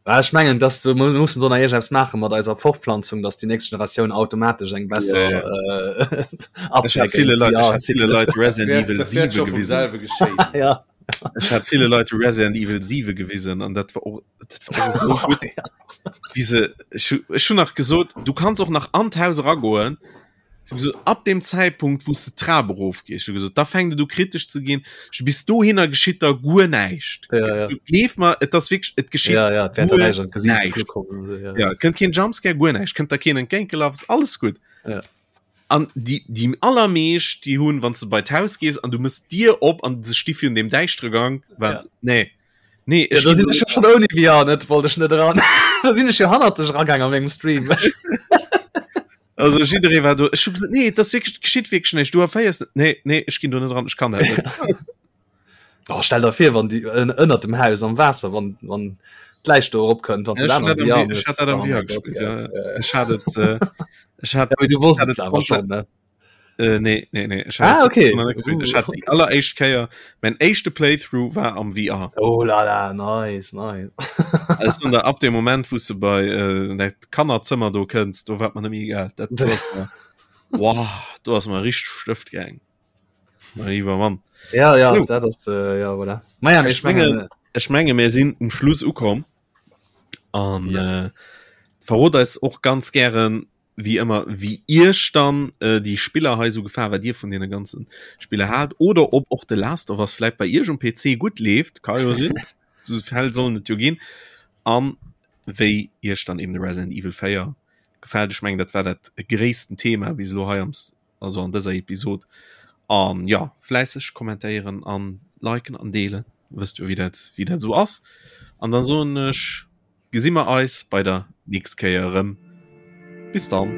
Ah, ech mengen dass du mu- mussen do nach iergendeppes maache mat eiser Fortpflanzung, dass déi nächst Generatioun automatesch eng besser Ja, äh, Ech hat ville Leit, ech hat ville Leit Resident Dat Evil wäert 7 scho vum gewisen. selwe geschéien. Ja. Ech hat ville Leit Resident Evil 7 gewisen an dat war och, dat war och esou gutt. Wéi se, ech hu, ech hunn nach gesot, du kanns och nach an d'Haus eragoen. Ech hu gesot, ab dem Zäitpunkt, wou s de d'Trap erofgees, ech hu gesot, da fänkt et u kritesch ze ginn. Ech hu bis dohinner geschitt da guer näischt. Ja, ja. Du gleef mer, et ass wierklech, et geschitt Ja, ja, et wäert der guer näischt an d'Gesiicht näischt. geflu kommen. So, ja. Ja, et kënnt keen Jumpscare, guer näischt, kënnt der keen entgéintgelaf, ass alles gutt. Ja. An déi, déi allermeescht, déi hunn, wann s de bei d'Haus gees an du mëss d'Dier op an se sti virun deem däischtere Gank, Ja. wat, nee, nee, Ja, ech do ginn sinn ech jo schon ouni VR net wollt ech net eran. Da sinn ech jo hannert sech eragaang a mengem Stream. Also jidderee war do, ech hu gesot, nee, dat ass wierklech, geschitt wierklech näischt, du erféiers net, nee, nee, ech ginn do net eran, ech kann dat net. Oh, stell der vir wann déi ënnert dem Haus am Waasser wann wann d'Läich do erop kënnt wann Ech du hat dat am ech hat dat am VR gespillt ja ech hat et äh, ech hat ja, du wosst hat et awer schon ne äh, nee nee nee ech ah, okay ech hat déi alleréischt Kéier mein éischte Playthrough war am VR oh la la nice nice also da ab dem Moment wou du bei äh, dat Kannerzëmmer do kënns do war man net méi egal dat do ass mer wow do ass mer richteg Stëft gaang Mein lieber Mann. Ja, ja, so. dat ass, äh, ja, voilà. Maja, ech mengen, ech menge mir sinn um Schluss ukomm an yes. äh, verrot eis och ganz gären wie ëmmer wie Iech dann äh, die Spiller hei so gefahr wat Dir vun den ganzen Spiller hat oder ob och de Last of Us vielleicht bei Iech um PC gut leeft kann jo sinn so Fäll sollen et jo ginn an wéi Iech dann eben de Resident Evil 4 gefällt ech mengen dat war dat gréissten Thema bis elo hei am also an dëser Episod an ja fläisseg kommentéieren an liken an deelen wësst jo wéi dat wéi dat sou ass an dann soen ech gesi mer eis bei der nächst Kéier erëm bis dann.